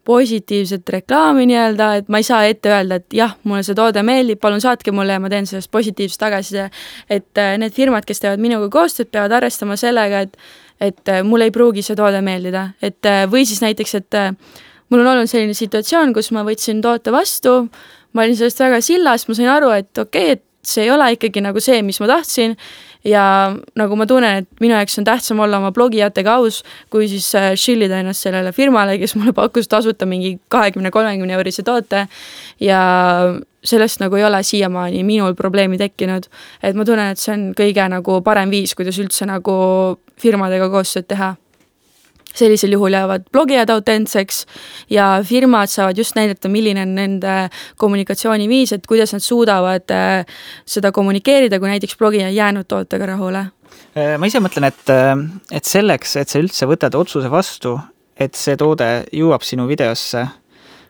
positiivset reklaami nii-öelda, et ma ei saa ette öelda, et jah, mulle see toode meeldib, palun saatke mulle ja ma teen sellest positiivset tagasiside. Et need firmad, kes teevad minuga koostööd, peavad arvestama sellega, et mulle ei pruugi see toode meeldida. Et, või siis näiteks, et mul on olnud selline situatsioon, kus ma võtsin toote vastu, ma olin sellest väga sillas, ma sain aru, et okei, et see ei ole ikkagi nagu see, mis ma tahtsin ja nagu ma tunnen, et minu jaoks on tähtsam olla oma blogijatega aus, kui siis shillida ennast sellele firmale, kes mulle pakkus tasuta mingi 20-30 eurise toote ja sellest nagu ei ole siiamaani minul probleemi tekkinud, et ma tunnen, et see on kõige nagu parem viis, kuidas üldse nagu firmadega koostööd teha. Sellisel juhul jäävad blogijad autentseks ja firmad saavad just näidata, milline on nende kommunikatsiooniviis, et kuidas nad suudavad seda kommunikeerida, kui näiteks blogija jäänud tootega rahule. Ma ise mõtlen, et selleks, et sa üldse võtad otsuse vastu, et see toode jõuab sinu videosse,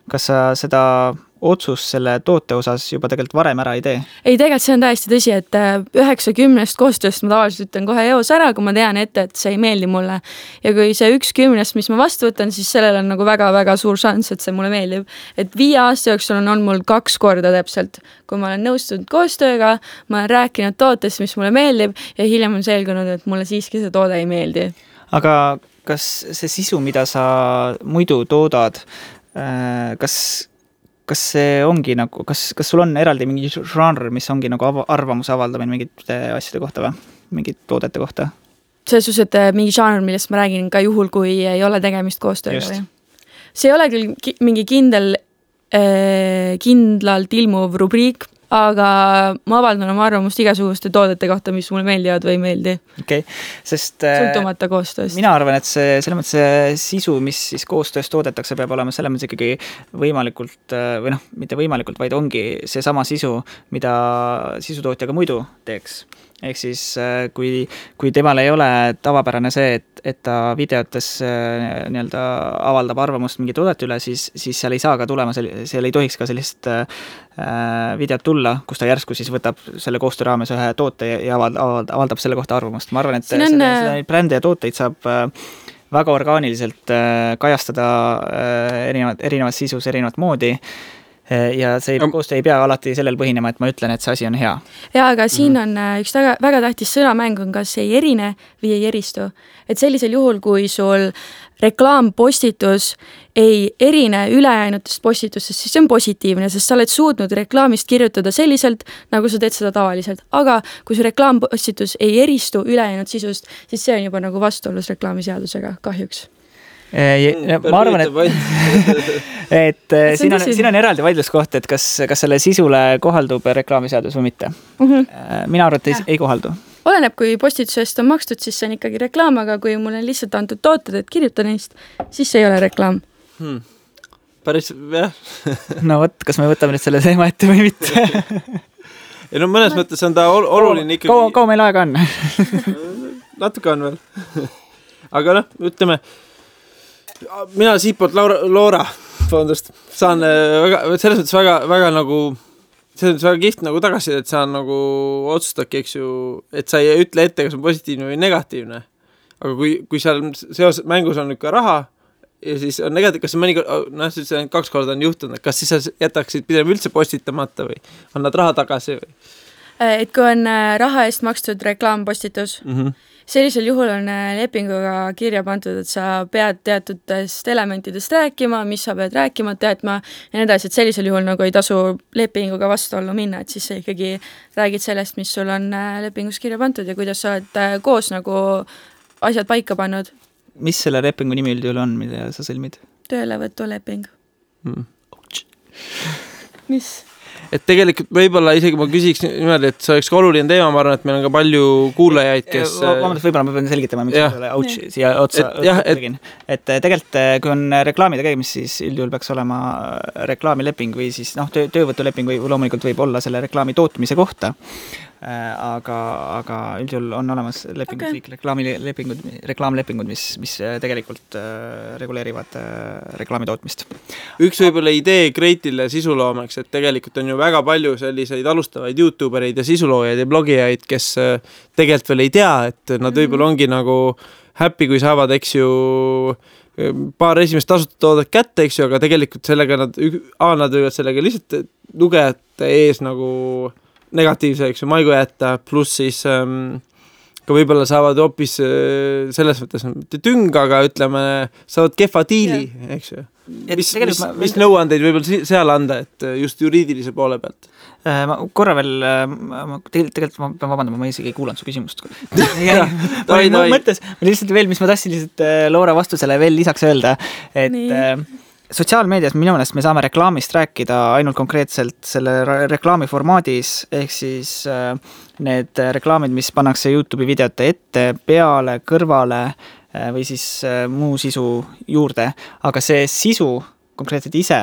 kas sa seda otsus selle toote osas juba tegelikult varem ära ei tee? Ei, tegelikult see on täiesti tõsi, et 9-10 koostööst ma tavaliselt ütlen kohe eos ära, kui ma tean ette, et see ei meeldi mulle. Ja kui see 1-10, mis ma vastu võtan, siis sellel on nagu väga-väga suur šans, et see mulle meeldib. Et 5 aasta jooksul on mul 2 korda täpselt, kui ma olen nõustunud koostööga, ma olen rääkinud tootest, mis mulle meeldib ja hiljem on selgunud, et mulle siiski see toode ei meeldi. Aga kas see sisu, mida sa muidu toodad, kas see ongi nagu, kas sul on eraldi mingi žanr, mis ongi nagu arvamuse avaldamine mingite asjade kohta või? Mingid toodete kohta? Selles suhtes, et mingi žanr, millest ma räägin ka juhul, kui ei ole tegemist koostööga või? See ei ole küll mingi kindlalt ilmuv rubriik, aga ma avaldan oma arvamust igasuguste toodete kohta, mis mulle meeldivad või ei meeldi. Okay. Sest sõltumata koostööst. Mina arvan, et selle mõttes see sisu, mis siis koostöös toodetakse, peab olema selle mõttes ikkagi võimalikult, või noh, mitte võimalikult, vaid ongi see sama sisu, mida sisutootjaga muidu teeks. Ehk siis, kui temal ei ole tavapärane see, et ta videotes nii-öelda avaldab arvamust mingi toodet üle, siis seal ei saa ka tulema, seal ei tohiks ka sellist videot tulla, kus ta järsku siis võtab selle koostöö raames ühe toote ja avaldab selle kohta arvamust. Ma arvan, et selle brände ja tooteid saab väga orgaaniliselt kajastada erinevat sisus, erinevat moodi ja see koostöö ei pea alati sellel põhinema, et ma ütlen, et see asi on hea. Ja, aga siin on üks väga tähtis sõnamäng on, kas ei erine või ei eristu. Et sellisel juhul, kui sul reklaampostitus ei erine ülejäänutest postitustest, siis see on positiivne, sest sa oled suutnud reklaamist kirjutada selliselt, nagu sa teed seda tavaliselt. Aga kui see reklaampostitus ei eristu ülejäänud sisust, siis see on juba nagu vastuolus reklaamiseadusega, kahjuks. Ma arvan, et siin on eraldi vaidluskoht, et kas selle sisule kohaldub reklaamiseadus või mitte. Mina arvan, et ei kohaldu. Oleneb, kui postitusest on makstud, siis see on ikkagi reklaam, aga kui mul on lihtsalt antud tooted, et kirjuta neist, siis see ei ole reklaam. Päris, jah. No võt, kas me võtame nüüd selle teema ette või mitte? Ja no mõnes mõttes on ta oluline ikkagi... Kaua meil aega on? Natuke on veel. Aga noh, ütleme, mina siitpoolt Loora fondust saan selles mõttes väga nagu... See on väga kiht nagu tagasi, et sa nagu otsustadki, eks ju, et sa ei ütle ette, kas on positiivne või negatiivne. Aga kui seal mängus on ikka raha ja siis on negatiivne, kas see mõnikord, see 2 korda on juhtunud, kas siis sa jätaksid pidem üldse postitamata või on nad raha tagasi või? Et kui on raha eest makstud reklaampostitus, sellisel juhul on lepinguga kirja pandud, et sa pead teatutest elementidest rääkima, mis sa pead rääkima, teadma ja nii edasi, et sellisel juhul nagu ei tasu lepinguga vastuollu minna, et siis sa ikkagi räägid sellest, mis sul on lepingus kirja pandud ja kuidas sa oled koos nagu asjad paika pannud. Mis selle lepingu nimi üldjuhul on, mida sa sõlmid? Töölevõtuleping. Mis? Et tegelikult võib-olla isegi ma küsiks niimoodi, et see oleks ka oluline teema, ma arvan, et meil on ka palju kuulajaid, kes... Võib-olla ma pean selgitama, miks selle ouch siia otsa tegin. Et tegelikult, kui on reklaami tegemist, siis üldjuhul peaks olema reklaamileping või siis töövõtuleping või loomulikult võib olla selle reklaami tootmise kohta. Aga üldjuhul on olemas lepingud, reklaamlepingud, mis tegelikult reguleerivad reklaami tootmist. Üks võib-olla idee Kreitile sisuloomeks, et tegelikult on ju väga palju selliseid alustavaid YouTubereid ja sisuloojaid ja blogijaid, kes tegelikult veel ei tea, et nad võib-olla ongi nagu happy, kui saavad, eks ju, paar esimest tasuta toodet kätte, eks ju, aga tegelikult sellega nad võivad sellega lihtsalt lugejate ees nagu negatiivse, eks ju, maigu jätta, pluss siis ka võib-olla saavad hoopis selles mõttes mitte tüng, aga ütleme, saavad kehva diili, eks ju. Mis nõuandeid võib-olla seal anda, et just juriidilise poole pealt? Ma korra veel, tegelikult ma pean vabandama, ma isegi ei kuulanud su küsimust. Ma mõttes, lihtsalt veel, mis ma tahtsin lihtsalt Loora vastusele veel lisaks öelda, et sotsiaalmeedias minu meelest me saame reklaamist rääkida ainult konkreetselt selle reklaami formaadis, ehk siis need reklaamid, mis pannakse YouTube'i videote ette, peale, kõrvale või siis muu sisu juurde, aga see sisu konkreetselt ise,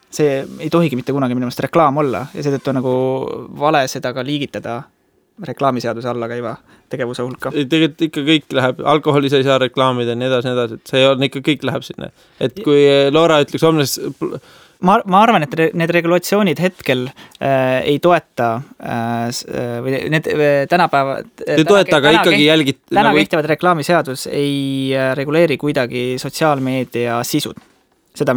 see ei tohigi mitte kunagi minu meelest reklaam olla ja seetõttu on nagu vale seda ka liigitada reklaamiseaduse alla käiva tegevuse hulka. Tegelikult ikka kõik läheb, alkoholi sa ei saa reklaamida, nii edasi, et see on ikka kõik läheb sinna. Et kui Loora ütleks homnes... Ma arvan, et need regulatsioonid hetkel ei toeta või need tänapäeva... Ei toeta, aga ikkagi jälgid... Täna kehtivad reklaamiseadus ei reguleeri kuidagi sotsiaalmeedia sisud. Seda,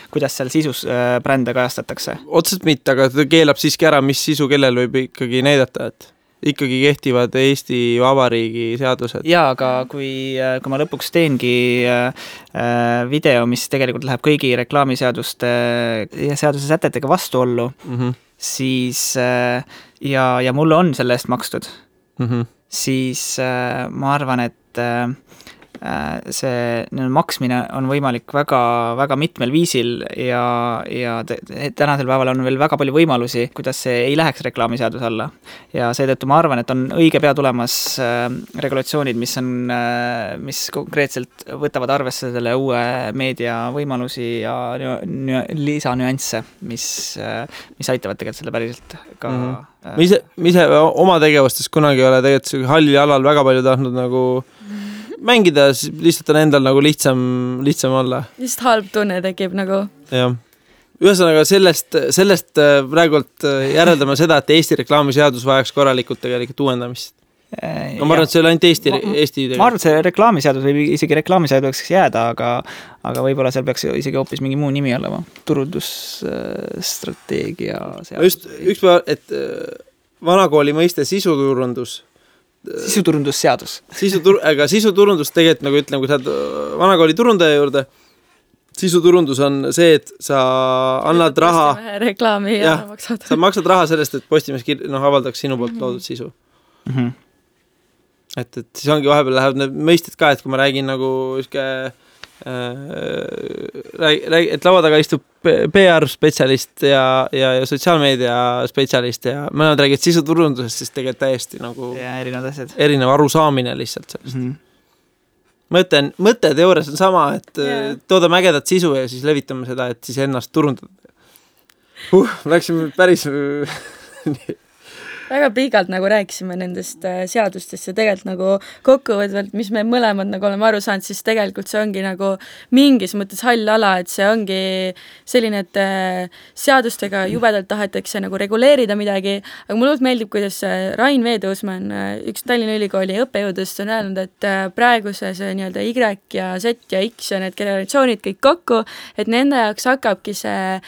kuidas seal sisus brände kajastatakse. Otseselt mitte, aga ta keelab siiski ära, mis sisu kellel võib ikkagi näidata, et ikkagi kehtivad Eesti Vabariigi seadused. Jaa, aga kui ma lõpuks teengi video, mis tegelikult läheb kõigi reklaamiseaduste ja seaduse sätetega vastuollu, siis ja mulle on selle eest makstud, siis ma arvan, et see maksmine on võimalik väga, väga mitmel viisil ja tänasel päeval on veel väga palju võimalusi, kuidas see ei läheks reklaamiseaduse alla. Ja seetõttu ma arvan, et on õige pea tulemas regulatsioonid, mis konkreetselt võtavad arvesse selle uue meedia võimalusi ja lisanüansse, mis aitavad tegelikult selle päriselt ka... Ma ise oma tegevustes kunagi ei ole tegelikult hallil alal väga palju tahtnud nagu mängida, lihtsalt on endal nagu lihtsam olla. Lihtsalt halb tunne tekib nagu. Jah. Ühesõnaga sellest praegult järeldame seda, et Eesti reklaamiseadus vajaks korralikult tegelikult uuendamist. No ma arvan, et see oli ainult Eesti ma arvan, et see reklaamiseadus või isegi reklaamiseaduseks jääda, aga võib-olla seal peaks isegi hoopis mingi muu nimi olema. Turundusstrateegia seadus. Just üks päev, et vanakooli mõiste sisuturundus. Sisuturundusseadus. Aga sisuturundus tegelikult, nagu ütlen, kui sa vanakooli turundaja juurde, sisuturundus on see, et sa annad raha. Reklaami ja maksad. Sa maksad raha sellest, et Postimees avaldaks sinu poolt loodud sisu. Et siis ongi vahepeal lähevad need mõisted ka, et kui ma räägin nagu et laua taga istub PR-spetsialist ja sotsiaalmeedia spetsialist ja mõlemad räägid sisuturundusest, siis tegelikult täiesti nagu erinev arusaamine lihtsalt sellest. Mõte teoorias on sama, et toodame ägedat sisu ja siis levitame seda, et siis ennast turundada. Läksime päris väga pikalt nagu rääkisime nendest seadustest ja tegelikult nagu kokkuvõtvalt, mis me mõlemad nagu oleme aru saanud, siis tegelikult see ongi nagu mingis mõttes hall ala, et see ongi selline, et seadustega jubedalt tahetakse nagu reguleerida midagi, aga mulle meeldib, kuidas Rain Veedoosman, üks Tallinna Ülikooli õppejõudust on öelnud, et praegu see nii-öelda Y ja Z ja X ja need generatsioonid kõik kokku, et nende jaoks hakkabki see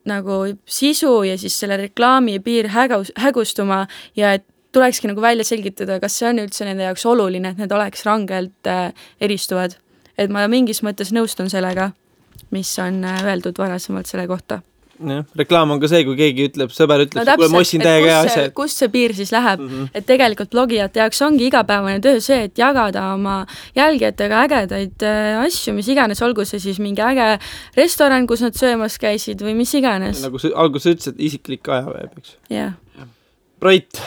nagu sisu ja siis selle reklaami piir hägustuma ja et tulekski nagu välja selgitada, kas see on üldse nende jaoks oluline, et need oleks rangelt eristuvad. Et ma mingis mõttes nõustun sellega, mis on öeldud varasemalt selle kohta. Ja, reklaam on ka see, kui keegi ütleb, sõber ütleb, kui ma ossin täiega asja. Kus see piir siis läheb? Et tegelikult blogijate jaoks ongi igapäevane töö see, et jagada oma jälgijatega ägedaid asju, mis iganes, olgu see siis mingi äge restoran, kus nad söömas käisid või mis iganes. Nagu alguses ütlesid, isiklik ajaveeb, eks? Jah. Brait,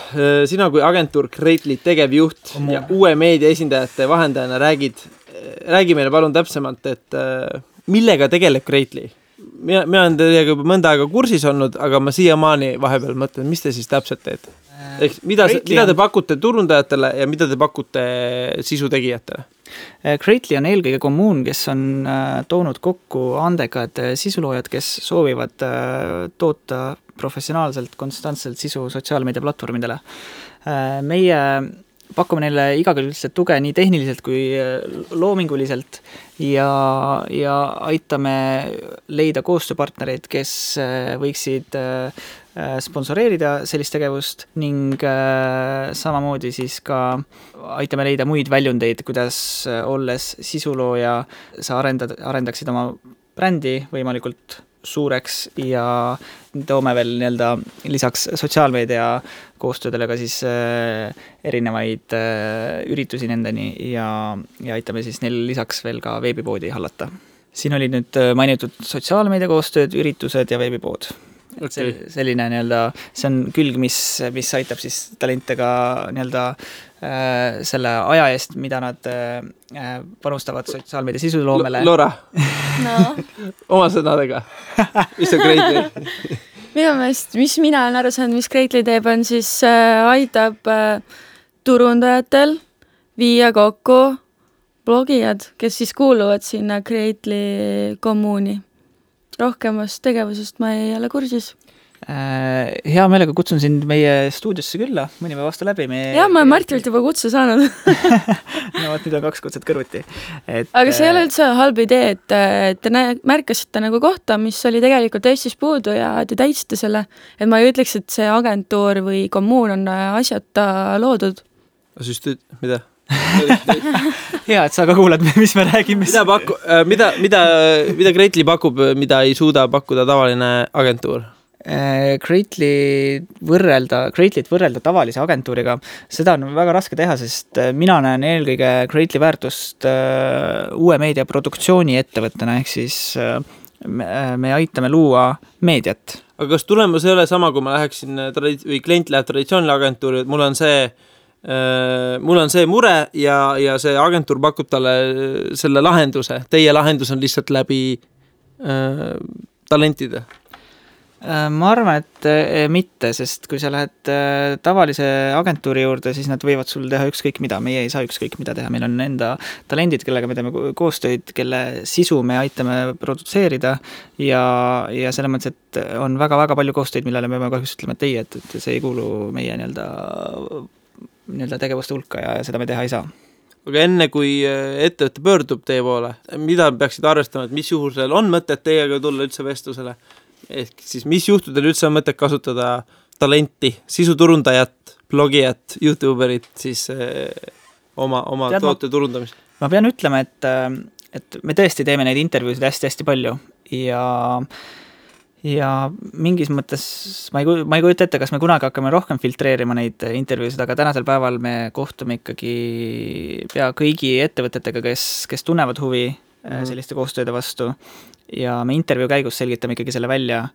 sina kui agentuur Greatly tegevjuht ja uue meedia esindajate vahendajana räägi meile palun täpsemalt, et millega tegeleb Greatly? Mina olen teiega juba mõnda aega kursis olnud, aga ma siiamaani vahepeal mõtlen, mis te siis täpselt teete? Mida te pakute turundajatele ja mida te pakute sisutegijatele? Greatly on eelkõige kommuun, kes on toonud kokku andekad sisuloojad, kes soovivad toota professionaalselt, konstantselt sisu sotsiaalmeedia platvormidele. Meie pakume neile igakülgselt tuge nii tehniliselt kui loominguliselt ja aitame leida koostööpartnereid, kes võiksid sponsoreerida sellist tegevust ning samamoodi siis ka aitame leida muid väljundeid, kuidas olles sisulooja sa arendaksid oma brändi võimalikult suureks ja toome veel nii-öelda lisaks sotsiaalmeedia koostöödele ka siis erinevaid üritusi nendeni ja aitame siis neil lisaks veel ka veebipoodi hallata. Siin oli nüüd mainitud sotsiaalmeedia koostööd, üritused ja veebipood. Okay. Selline nii-öelda, see on külg, mis aitab siis talentega nii-öelda selle aja eest, mida nad panustavad sotsiaalmeedia sisuloomele. Laura, oma sõnadega, mis on Greatly? Minu meelest, mis mina olen aru saanud, mis Greatly teeb, on siis aitab turundajatel viia kokku blogijad, kes siis kuuluvad sinna Greatly kommuuni. Rohkemast tegevusest ma ei ole kursis. Hea meelega kutsun sind meie stuudiosse külla, mõni päev vastu läbi. Jah, ma olen Martilt juba kutse saanud. No, nüüd on 2 kutset kõrvuti. Aga see ei ole üldse halb idee, et te märkasite nagu kohta, mis oli tegelikult Eestis puudu ja te täitsite selle. Et ma ei ütleks, et see agentuur või kommuun on asjata loodud. Mida? Hea, et sa ka kuulad, mis me räägime. Mida Greatly pakub, mida ei suuda pakkuda tavaline agentuur? Greatlyt võrrelda tavalise agentuuriga, seda on väga raske teha, sest mina näen eelkõige Greatly väärtust uue meedia produktsiooni ettevõttena, ehk siis me aitame luua meediat. Aga kas tulemus ei ole sama, kui ma läheksin või klient läheb traditsioonile agentuuri, et mul on see mure ja see agentuur pakub talle selle lahenduse. Teie lahendus on lihtsalt läbi talentide. Ma arvan, et mitte, sest kui sa lähed tavalise agentuuri juurde, siis nad võivad sul teha ükskõik mida. Meie ei saa ükskõik mida teha. Meil on enda talendid, kellega me teeme koostöid, kelle sisu me aitame produtseerida ja selles mõttes, et on väga-väga palju koostöid, millele me peame kahjuks ütlema teie, et see ei kuulu meie nii-öelda tegevuste hulka ja seda me teha ei saa. Aga enne kui ettevõtte pöördub teie poole, mida peaksid arvestama, et mis juhusel on mõtet teiega tulla üldse vestlusele? Ehk siis mis juhtudel üldse on mõtet kasutada talenti, sisuturundajat, blogijat, YouTuberit siis oma toote turundamist? Ma pean ütlema, et me tõesti teeme neid intervjuusid hästi-hästi palju ja mingis mõttes ma ei kujuta ette, kas me kunagi hakkame rohkem filtreerima neid intervjuusid, aga tänasel päeval me kohtume ikkagi pea kõigi ettevõtetega, kes tunnevad huvi selliste koostööde vastu ja me intervjuu käigus selgitame ikkagi selle välja,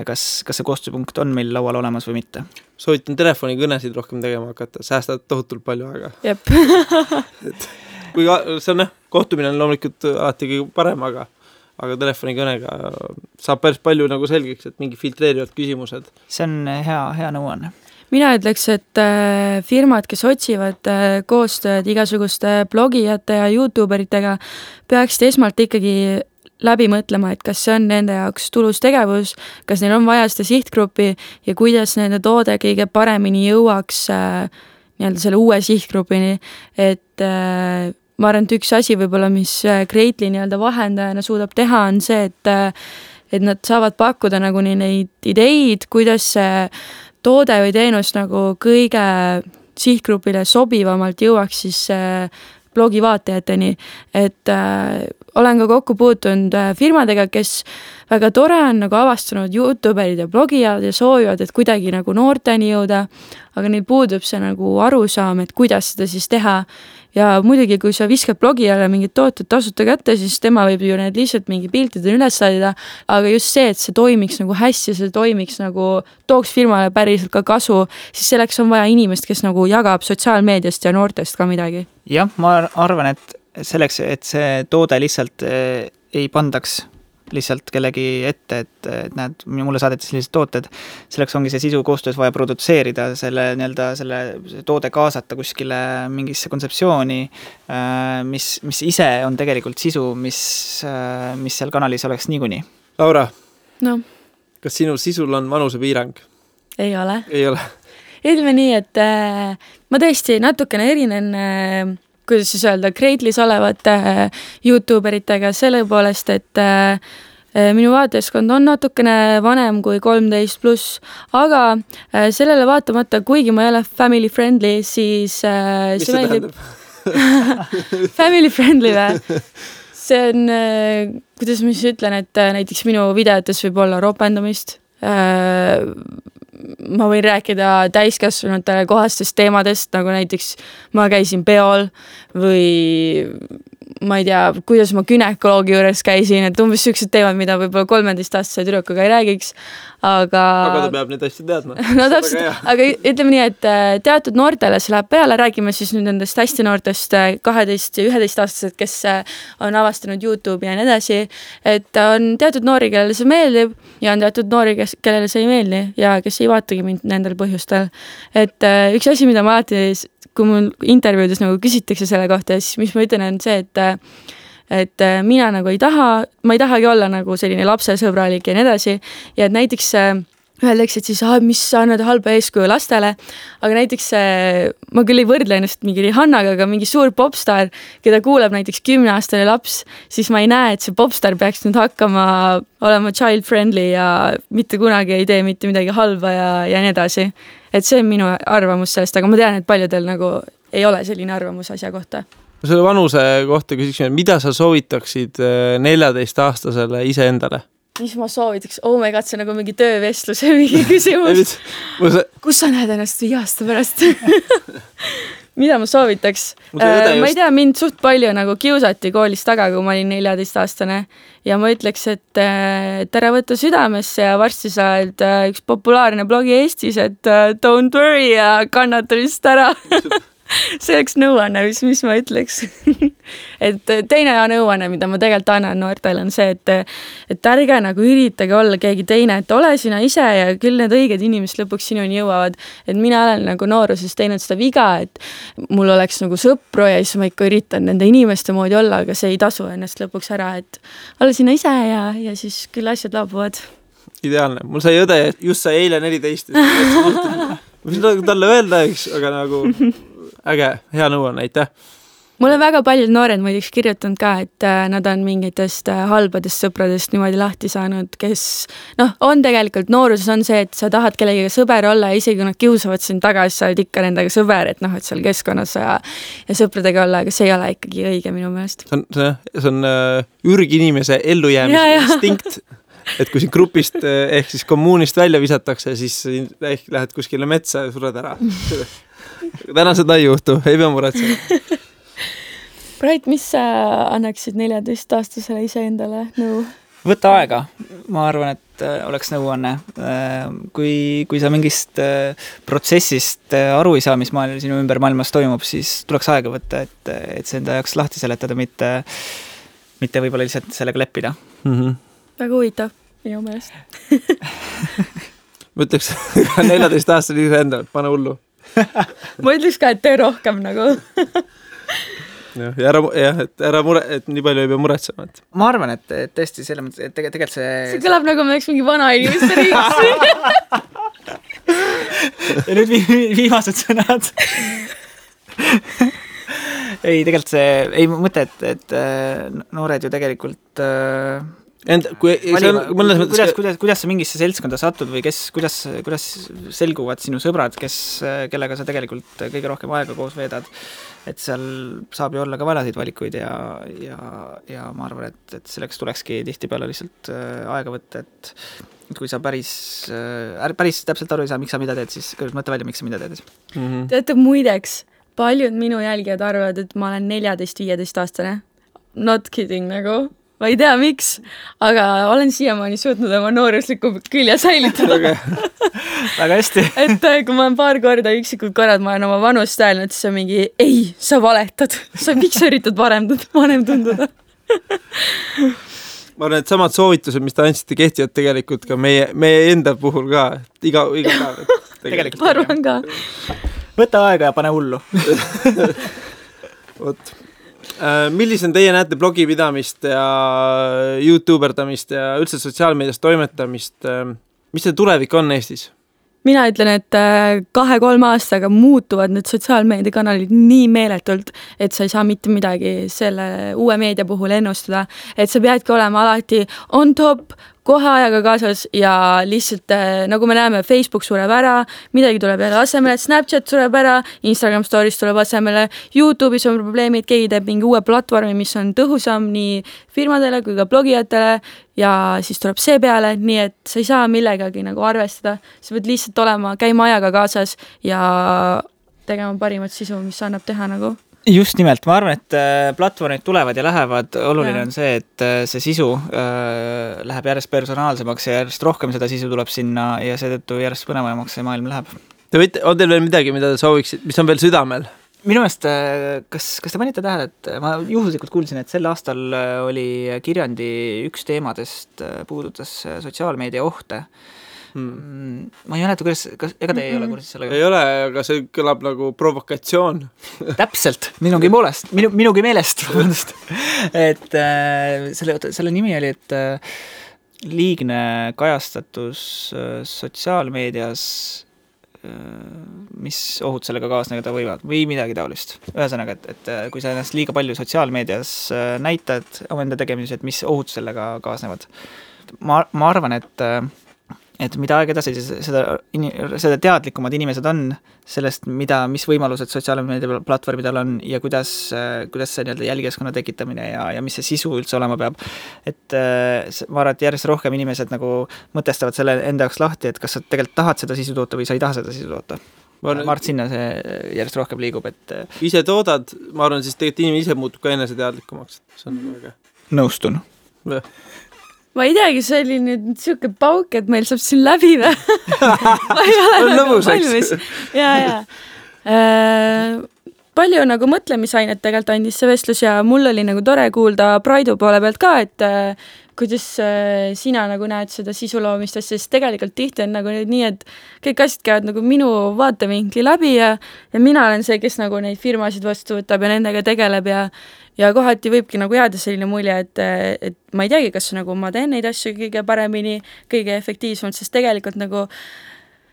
kas see koostööpunkt on meil laual olemas või mitte. Soovitan telefonikõnesid rohkem tegema hakata, säästad tohutult palju aega. Jep. Kui see on kohtumine on loomulikult alati kõige parem, aga telefonikõnega saab päris palju nagu selgeks, et mingi filtreerivad küsimused. See on hea nõuanne. Mina ütleks, et firmad, kes otsivad koostööd igasuguste blogijate ja YouTuberitega, peaksid esmalt ikkagi läbi mõtlema, et kas see on nende jaoks tulus tegevus, kas neil on vaja seda sihtgruppi ja kuidas nende toode kõige paremini jõuaks nii-öelda selle uue sihtgrupini, et ma arvan, et üks asi võib-olla, mis Greatly nii-öelda vahendajana suudab teha, on see, et nad saavad pakkuda nagu neid ideid, kuidas see toode või teenus nagu kõige sihtgrupile sobivamalt jõuaks siis blogi vaatajateni, et olen ka kokku puutunud firmadega, kes väga tore on nagu avastanud YouTuberid ja blogijad ja soovivad, et kuidagi nagu noorteni jõuda, aga neil puudub see nagu arusaam, et kuidas seda siis teha. Ja muidugi, kui sa viskad blogijale mingid tooted tasuta kätte, siis tema võib ju need lihtsalt mingi piltide üles laadida, aga just see, et see toimiks nagu hästi, see toimiks nagu tooks firmale päriselt ka kasu, siis selleks on vaja inimest, kes nagu jagab sotsiaalmeediast ja noortest ka midagi. Jah, ma arvan, et selleks, et see toode lihtsalt ei pandaks lihtsalt kellegi ette, et näed, mulle saadeti sellised tooted, selleks ongi see sisu koostöös vaja produtseerida, selle toode kaasata kuskile mingisse kontseptsiooni, mis ise on tegelikult sisu, mis seal kanalis oleks niikuni. Laura, no. Kas sinu sisul on vanusepiirang? Ei ole. Ei ole. Ütleme nii, et ma tõesti natukene erinen kuidas siis öelda, Greatly's olevate YouTuberitega selle poolest, et minu vaatajaskond on natukene vanem kui 13+, aga sellele vaatamata, kuigi ma ei ole family friendly, siis mis see tähendab? Family friendly või? See on, kuidas ma siis ütlen, et näiteks minu videotes võib olla ropendamist, ma võin rääkida täiskasvanutele kohastest teemadest, nagu näiteks ma käisin peol või ma ei tea, kuidas ma günekoloogi juures käisin, et umbes sellised teemad, mida võib-olla 13-aastase tüdrukuga ei räägiks, aga ta peab neid hästi teadma. No täpselt, aga ütleme nii, et teatud noortele see läheb peale, räägime siis nüüd nendest hästi noortest 12 ja 11-aastased, kes on avastanud YouTube ja nii edasi, et on teatud noori, kellele see meeldib ja on teatud noori, kellele see ei meeldi ja kes ei vaatagi mind nendel põhjustel. Et üks asi, mida ma alati kui mul intervjuudes nagu küsitakse selle kohta, siis mis ma ütlen on see, et mina nagu ma ei tahagi olla nagu selline lapsesõbralik ja nii edasi ja et näiteks öeldakse, et siis mis sa annad halba eeskuju lastele, aga näiteks ma küll ei võrdle ennast mingi Rihannaga, aga mingi suur popstar, keda kuuleb näiteks 10-aastane laps, siis ma ei näe, et see popstar peaks nüüd hakkama olema child friendly ja mitte kunagi ei tee mitte midagi halba ja nii edasi. Et see on minu arvamus sellest, aga ma tean, et paljudel nagu ei ole selline arvamus asja kohta. Selle vanuse kohta küsiksime, mida sa soovitaksid 14-aastasele iseendale? Mis ma soovitaks? Oh my god, see on nagu mingi töövestluse mingi küsimus. Kus sa näed ennast 5 aasta pärast? Mida ma soovitaks? Ma ei tea, mind suht palju nagu kiusati koolis taga, kui ma olin 14-aastane ja ma ütleks, et ära võtta südamesse ja varsti sa oled üks populaarne blogi Eestis, et don't worry ja kannata vist ära. See oleks nõuanne, mis ma ütleks. Et teine nõuanne, mida ma tegelikult annan noortele, on see, et ärge nagu üritage olla keegi teine, et ole sina ise ja küll need õiged inimesed lõpuks sinuni jõuavad. Et mina olen nagu nooruses teinud seda viga, et mul oleks nagu sõpru ja siis ma ikka üritan nende inimeste moodi olla, aga see ei tasu ennast lõpuks ära, et ole sina ise ja siis küll asjad laabuvad. Ideaalne. Mul sai õde, just sai eile 14. Võin talle öelda, aga nagu äge, hea nõuanne, aitäh. Mulle väga paljud noored muidugi kirjutanud ka, et nad on mingitest halbadest sõpradest niimoodi lahti saanud, kes on tegelikult nooruses on see, et sa tahad kellegiga sõber olla ja isegi kui nad kiusavad sind tagasi, sa oled ikka nendega sõber, et et seal keskkonnas ja sõpradega olla, aga see ei ole ikkagi õige minu meelest. See on ürginimese ellujäämise instinkt, et kui siin grupist ehk siis kommuunist välja visatakse, siis ehk lähed kuskile metsa ja sured ära. Täna seda ei juhtu, ei pea muretsema. Brait, mis sa annaksid 14-aastasele iseendale nõu? Võta aega. Ma arvan, et oleks nõuanne. Kui sa mingist protsessist aru ei saa, mis sinu ümber maailmas toimub, siis tuleks aega võtta, et see enda jaoks lahti seletada, mitte võib-olla lihtsalt sellega leppida. Väga huvitav, minu meelest. Ma ütleks 14-aastasele iseendale, pane hullu. Ma ütleks ka, et tee rohkem nagu. et ära mure, et nii palju ei pea muretsema. Et. Ma arvan, et tõesti selle mõttes, et tegelikult see kõlab nagu me oleks mingi vana inimeste riigis. Ja nüüd viimased sõnad. Ei, tegelikult ei mõte, et noored ju tegelikult kuidas sa mingisse seltskonda satud või kuidas selguvad sinu sõbrad, kellega sa tegelikult kõige rohkem aega koos veedad, et seal saab ju olla ka valasid valikuid ja ma arvan, et selleks tulekski tihtipeale lihtsalt aega võtta, et kui sa päris täpselt aru ei saa, miks sa mida teed, siis mõtle välja, miks sa mida teed. Teate, muideks, paljud minu jälgijad arvavad, et ma olen 14-15 aastane. Not kidding nagu. Ma ei tea, miks, aga olen siiamaani suutnud oma noorusliku külje säilitada. Väga hästi. Et kui ma olen paar korda üksikud korrad, ma olen oma vanust öelnud, siis on mingi, ei, sa valetad. Miks sa üritad vanem tunduda? Ma arvan, et samad soovitused, mis te andsite, kehtivad tegelikult ka meie enda puhul ka. Iga päev. Tegelikult. Ma arvan ka. Võta aega ja pane hullu. Vot. Millisena teie näete blogipidamist ja YouTuberdamist ja üldse sotsiaalmeedias toimetamist? Mis see tulevik on Eestis? Mina ütlen, et 2-3 aastaga muutuvad need sotsiaalmeediakanalid nii meeletult, et sa ei saa mitte midagi selle uue meedia puhul ennustada. Et sa peadki olema alati on top, kohe ajaga kaasas ja lihtsalt, nagu me näeme, Facebook sureb ära, midagi tuleb jälle asemele, Snapchat sureb ära, Instagram Stories tuleb asemele, YouTube'is on probleemid, keegi teeb mingi uue platvormi, mis on tõhusam nii firmadele kui ka blogijatele ja siis tuleb see peale, nii et sa ei saa millegagi nagu arvestada. Sa pead lihtsalt käima ajaga kaasas ja tegema parimat sisu, mis annab teha nagu. Just nimelt, ma arvan, et platvormid tulevad ja lähevad, oluline on see, et see sisu läheb järjest personaalsemaks ja järjest rohkem seda sisu tuleb sinna ja seetõttu järjest põnevamaks see maailm läheb. On teil veel midagi, mida te sooviksid, mis on veel südamel? Minu meelest, kas te panite tähele, et ma juhuslikult kuulsin, et sel aastal oli Kirjandi üks teemadest puudutas sotsiaalmeedia ohte. Ma ei mäleta, ega te ei ole kursis sellega? Ei ole, aga see kõlab nagu provokatsioon. Täpselt, minugi meelest. Et selle nimi oli, et liigne kajastatus sotsiaalmeedias, mis ohud sellega kaasneda võivad või midagi taolist. Ühesõnaga, et kui sa ennast liiga palju sotsiaalmeedias näitad omenda tegemised, et mis ohud sellega kaasnevad. Ma arvan, et mida aeg edasi, seda teadlikumad inimesed on sellest, mis võimalused sotsiaalmeedia platvormidel on ja kuidas see jälgijaskonna tekitamine ja mis see sisu üldse olema peab. Et ma arvan, et järjest rohkem inimesed nagu mõtestavad selle enda jaoks lahti, et kas sa tegelikult tahad seda sisu toota või sa ei taha seda sisu toota. Ma arvan, sinna see järjest rohkem liigub. Ise toodad, ma arvan, siis tegelikult inimene ise muutub ka enese teadlikumaks. See on väga. Nõustun. Ma ei teagi, see oli nüüd siuke pauk, et meil saab siin läbi või? Ma ei ole nagu valmis. Ja. Palju nagu mõtlemisainet tegelikult andis see vestlus ja mul oli nagu tore kuulda Braidu poole pealt ka, et kuidas sina nagu näed seda sisuloomistest, sest tegelikult tihti on nagu nii, et kõik asjad käivad nagu minu vaatevinkli läbi ja mina olen see, kes nagu neid firmasid vastu võtab ja nendega tegeleb ja kohati võibki nagu jääda selline mulje, et ma ei teagi, kas nagu ma teen neid asju kõige paremini, kõige efektiivsemalt, sest tegelikult nagu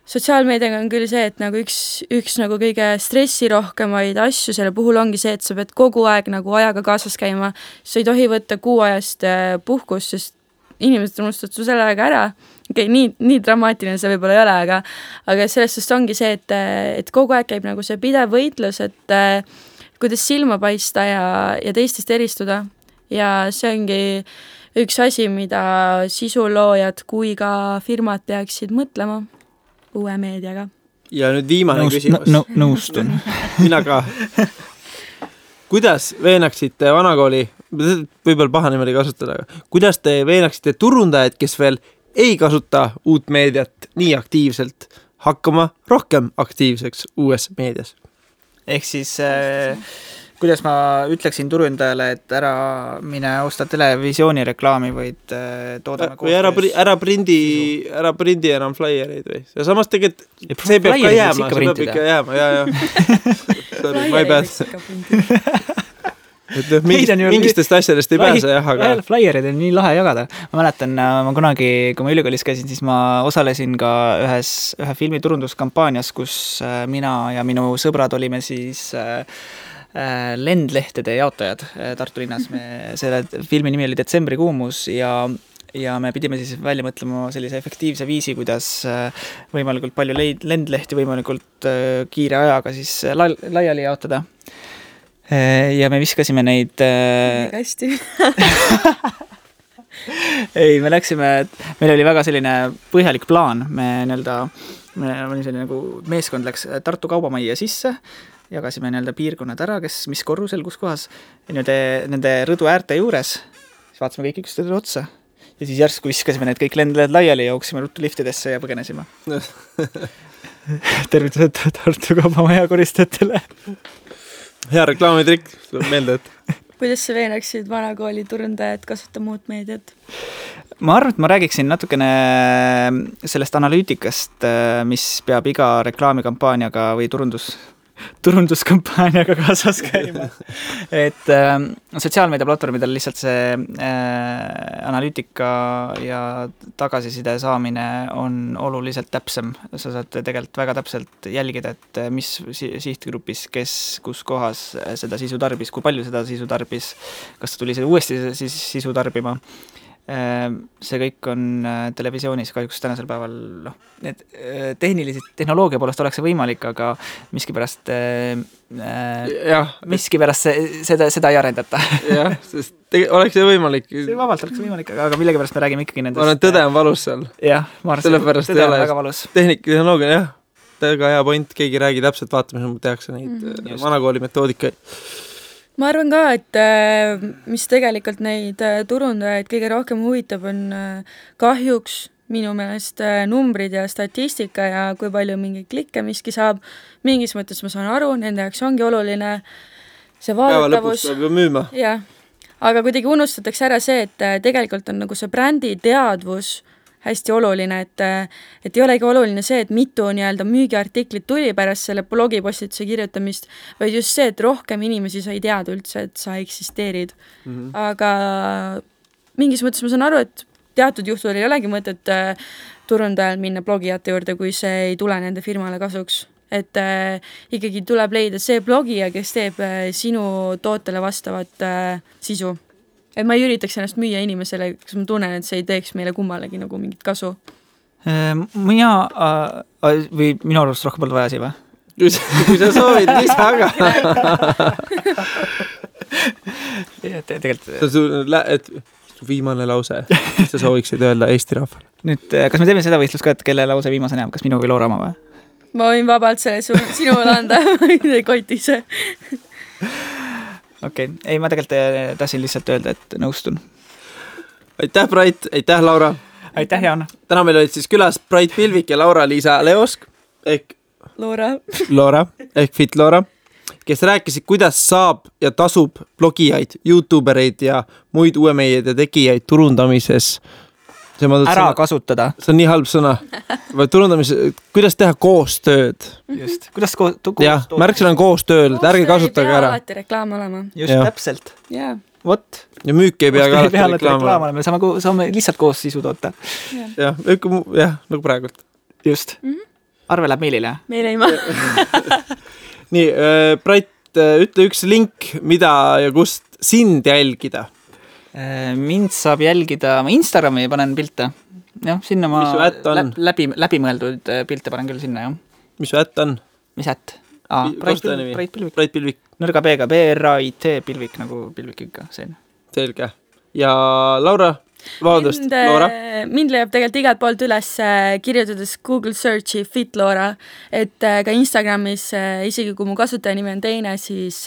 sotsiaalmeediaga on küll see, et nagu üks nagu kõige stressirohkemaid asju selle puhul ongi see, et sa pead kogu aeg nagu ajaga kaasas käima. Sa ei tohi võtta kuu ajast puhkust, sest inimesed unustavad su selle aega ära. Okay, nii dramaatiline see võib-olla ei ole, aga sellest just ongi see, et kogu aeg käib nagu see pidev võitlus, et kuidas silma paista ja teistest eristuda. Ja see ongi üks asi, mida sisuloojad kui ka firmad peaksid mõtlema uue meediaga. Ja nüüd viimane küsimus. Nõustun. Mina ka. Kuidas veenaksite vanakooli, võib-olla paha niimoodi kasutada, kuidas te veenaksite turundajad, kes veel ei kasuta uut meediat nii aktiivselt, hakkama rohkem aktiivseks uues meedias? Ehk siis kuidas ma ütleksin turundajale, et ära mine osta televisiooni reklaami, vaid toodame või ära prindi enam flyer'id või? Ja samas tegelikult see peab ka jääma, see peab ikka jääma, ja. Sorry, ma ei pääse. Et mingistest asjadest ei pääse, jah, aga... Flyerid on nii lahe jagada. Ma mäletan, ma kunagi, kui ma ülikoolis käisin, siis ma osalesin ka ühe filmi turunduskampaanias, kus mina ja minu sõbrad olime siis lendlehtede jaotajad Tartu linnas. Selle filmi nimi oli Detsembri kuumus ja me pidime siis välja mõtlema sellise efektiivse viisi, kuidas võimalikult palju lendlehti võimalikult kiire ajaga siis laiali jaotada. Ja me viskasime neid... Hästi. Ei, me läksime, meil oli väga selline põhjalik plaan. Me oli selline nagu meeskond läks Tartu kaubamajja sisse, jagasime piirkonnad ära, mis korrusel, kus kohas, ja nende rõdu äärte juures, siis vaatasime kõik üksteisele otsa. Ja siis järsku viskasime need kõik lendled laiali ja jooksime ruttu liftidesse ja põgenesime. Tervitused Tartu kaubamaja koristajatele. Hea reklaamitrikk, tuleb meelde, et... Kuidas sa veenaksid vanakooli turundajad kasutama uut meediat? Ma arvan, et ma räägiksin natukene sellest analüütikast, mis peab iga reklaamikampaaniaga või turunduskampaaniaga kaasas käima. Et sotsiaalmeediaplatvormidel lihtsalt see analüütika ja tagasiside saamine on oluliselt täpsem. Sa saad tegelikult väga täpselt jälgida, et mis sihtgrupis, kes kus kohas seda sisu tarbis, kui palju seda sisu tarbis, kas ta tuli uuesti sisu tarbima. See kõik on televisioonis kahjuks tänasel päeval need tehnoloogia poolest oleks see võimalik, aga miskipärast seda ei arendata. Jah, sest oleks see võimalik. See vabalt oleks võimalik, aga millegipärast me räägime ikkagi nendest. Olen tõde on valus seal. Jah, ma arvan, tõde on väga valus. Tehnoloogia, jah. Väga hea point, keegi räägi täpselt vaatamise, tehakse neid vanakooli metoodikaid. Ma arvan ka, et mis tegelikult neid turundajaid kõige rohkem huvitab, on kahjuks minu meelest numbrid ja statistika ja kui palju mingi klikke miski saab. Mingis mõttes ma saan aru, nende jaoks ongi oluline see vaadatavus. Päeva lõpuks saab ju müüma. Jah, aga kuidagi unustatakse ära see, et tegelikult on nagu see brändi teadvus hästi oluline, et ei olegi oluline see, et mitu müügiartiklit tuli pärast selle blogipostituse kirjutamist, vaid just see, et rohkem inimesi sai teada üldse, et sa eksisteerid. Aga mingis mõttes ma saan aru, et teatud juhtudel ei olegi mõtet turundajal minna blogijate juurde, kui see ei tule nende firmale kasuks. Et ikkagi tuleb leida see blogija, kes teeb sinu tootele vastavat sisu. Et ma ei üritaks ennast müüa inimesele, kas ma tunnen, et see ei teeks meile kummalegi nagu mingit kasu. Või minu arvust rohkem polnud vaja siia, või? Kui sa soovid, lisa aga. Tegelikult... Viimane lause, mis sa sooviksid öelda Eesti rahvale. Nüüd, kas me teeme seda võistlust ka, et kelle lause viimase näeb? Kas minu või Loora oma või? Ma võin vabalt selle sinule anda, ei kotise. Okei, ei, ma tegelikult tahtsin lihtsalt öelda, et nõustun. Aitäh, Brait, aitäh, Laura. Aitäh, Jaan. Täna meil olid siis külas Brait Pilvik ja Laura-Liisa Leosk ehk Loora ehk Fit Loora, kes rääkisid, kuidas saab ja tasub blogijaid, YouTubereid ja muid uue meedia tegijaid turundamises. Ära kasutada. See on nii halb sõna. Turundamises, kuidas teha koostööd. Just. Kuidas koostööd? Jah, märksõna on koostööd, ärge kasutage ära. Alati reklaam olema. Just, täpselt. Jaa. Vot. Ja müük ei pea ka alati reklaam olema. Me saame lihtsalt koos sisu toota. Jah, nagu praegult. Just. Arve läheb meilile. Meil ei ma. Nii, Brait, ütle üks link, mida ja kust sind jälgida. Mind saab jälgida, ma Instagrami panen pilte. Jah, sinna ma läbimõeldud pilte panen küll sinna, jah. Mis su ätt on? Mis ätt? Brait Pilvik. Nõrga B-ga, BRAIT Pilvik, nagu Pilvik ikka, see. Selge. Ja Laura? Vabandust, Laura? Mind leiab tegelikult igalt poolt üles kirjutades Google Searchi Fit Laura, et ka Instagramis, isegi kui mu kasutajanimi on teine, siis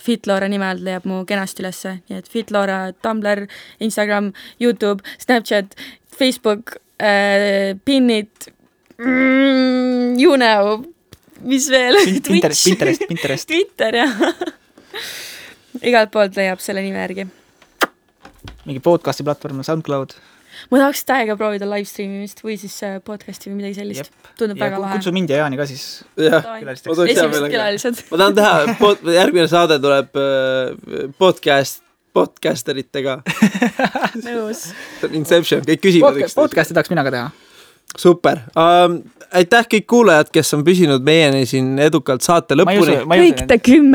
Fit Laura nimel leiab mu kenasti üles. Nii et Fit Laura, Tumblr, Instagram, YouTube, Snapchat, Facebook, Pinnid, you know, mis veel? Pinterest. Twitter, jah. Igalt poolt leiab selle nime järgi. Mingi podcasti platvorm, SoundCloud. Ma tahaks täiega proovida livestreamimist või siis podcasti või midagi sellist. Tundub väga lahe. Kutsu mind ja Jaani ka siis. Esimesed külalised. Ma tahan teha, järgmine saade tuleb podcasteritega. Nõus. Inception, kõik küsivad. Podcasti tahaks mina ka teha. Super. Aitäh kõik kuulajad, kes on püsinud meieni siin edukalt saate lõpuni. Kõik te 10.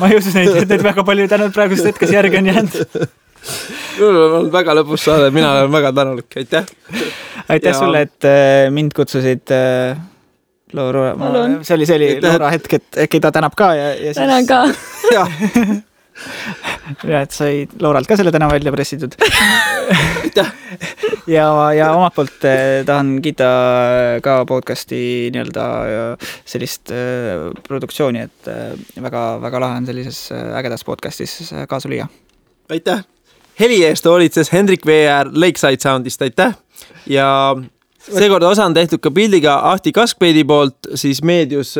Ma ei usu neid väga palju tänud praegust hetkes järgi on jäänud. Mul on väga lõpus saade, mina olen väga tänulik, aitäh. Aitäh sulle, et mind kutsusid Laura, see oli Laura hetk, et äkki ta tänab ka ja siis... Tänan ka. Ja, et sai Lauralt ka selle täna välja pressitud. ja omalt poolt tahan kiita ka podcasti nii-öelda sellist produktsiooni, et väga lahe on sellises ägedas podcastis kaasa lüüa. Aitäh! Heli eest hoolitses Hendrik VR Lakeside Soundist, aitäh! Ja seekord osa on tehtud ka pildiga Ahti Kaskpeidi poolt, siis Meedius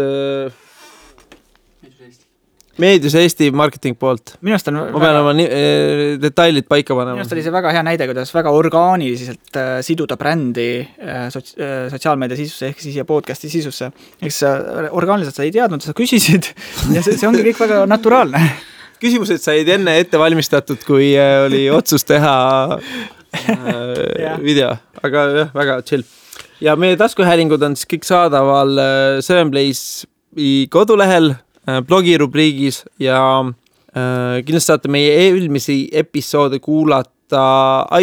Eesti marketing poolt. Ma pean oma detailid paika panema. Minust oli see väga hea näide, kuidas väga orgaaniliselt siduda brändi sotsiaalmeedia sisusse ehk siis ja podcasti sisusse. Eks orgaaniliselt sa ei teadnud, sa küsisid ja see ongi kõik väga naturaalne. Küsimused said enne ette valmistatud, kui oli otsus teha video, aga jah, väga chill. Ja meie taskuhäälingud on siis kõik saadaval Sevenplace'i kodulehel, blogirubriigis ja kindlasti saate meie eelmisi episoode kuulata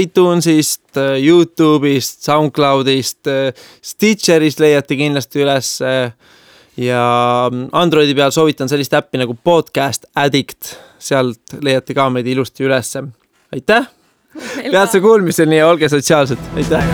iTunesist, YouTube'ist, SoundCloud'ist, Stitcherist leiate kindlasti üles ja Androidi peal soovitan sellist äppi nagu Podcast Addict, sealt leiate ka meid ilusti üles. Aitäh! Peatse kuulmiseni ja olge sotsiaalsed. Aitäh!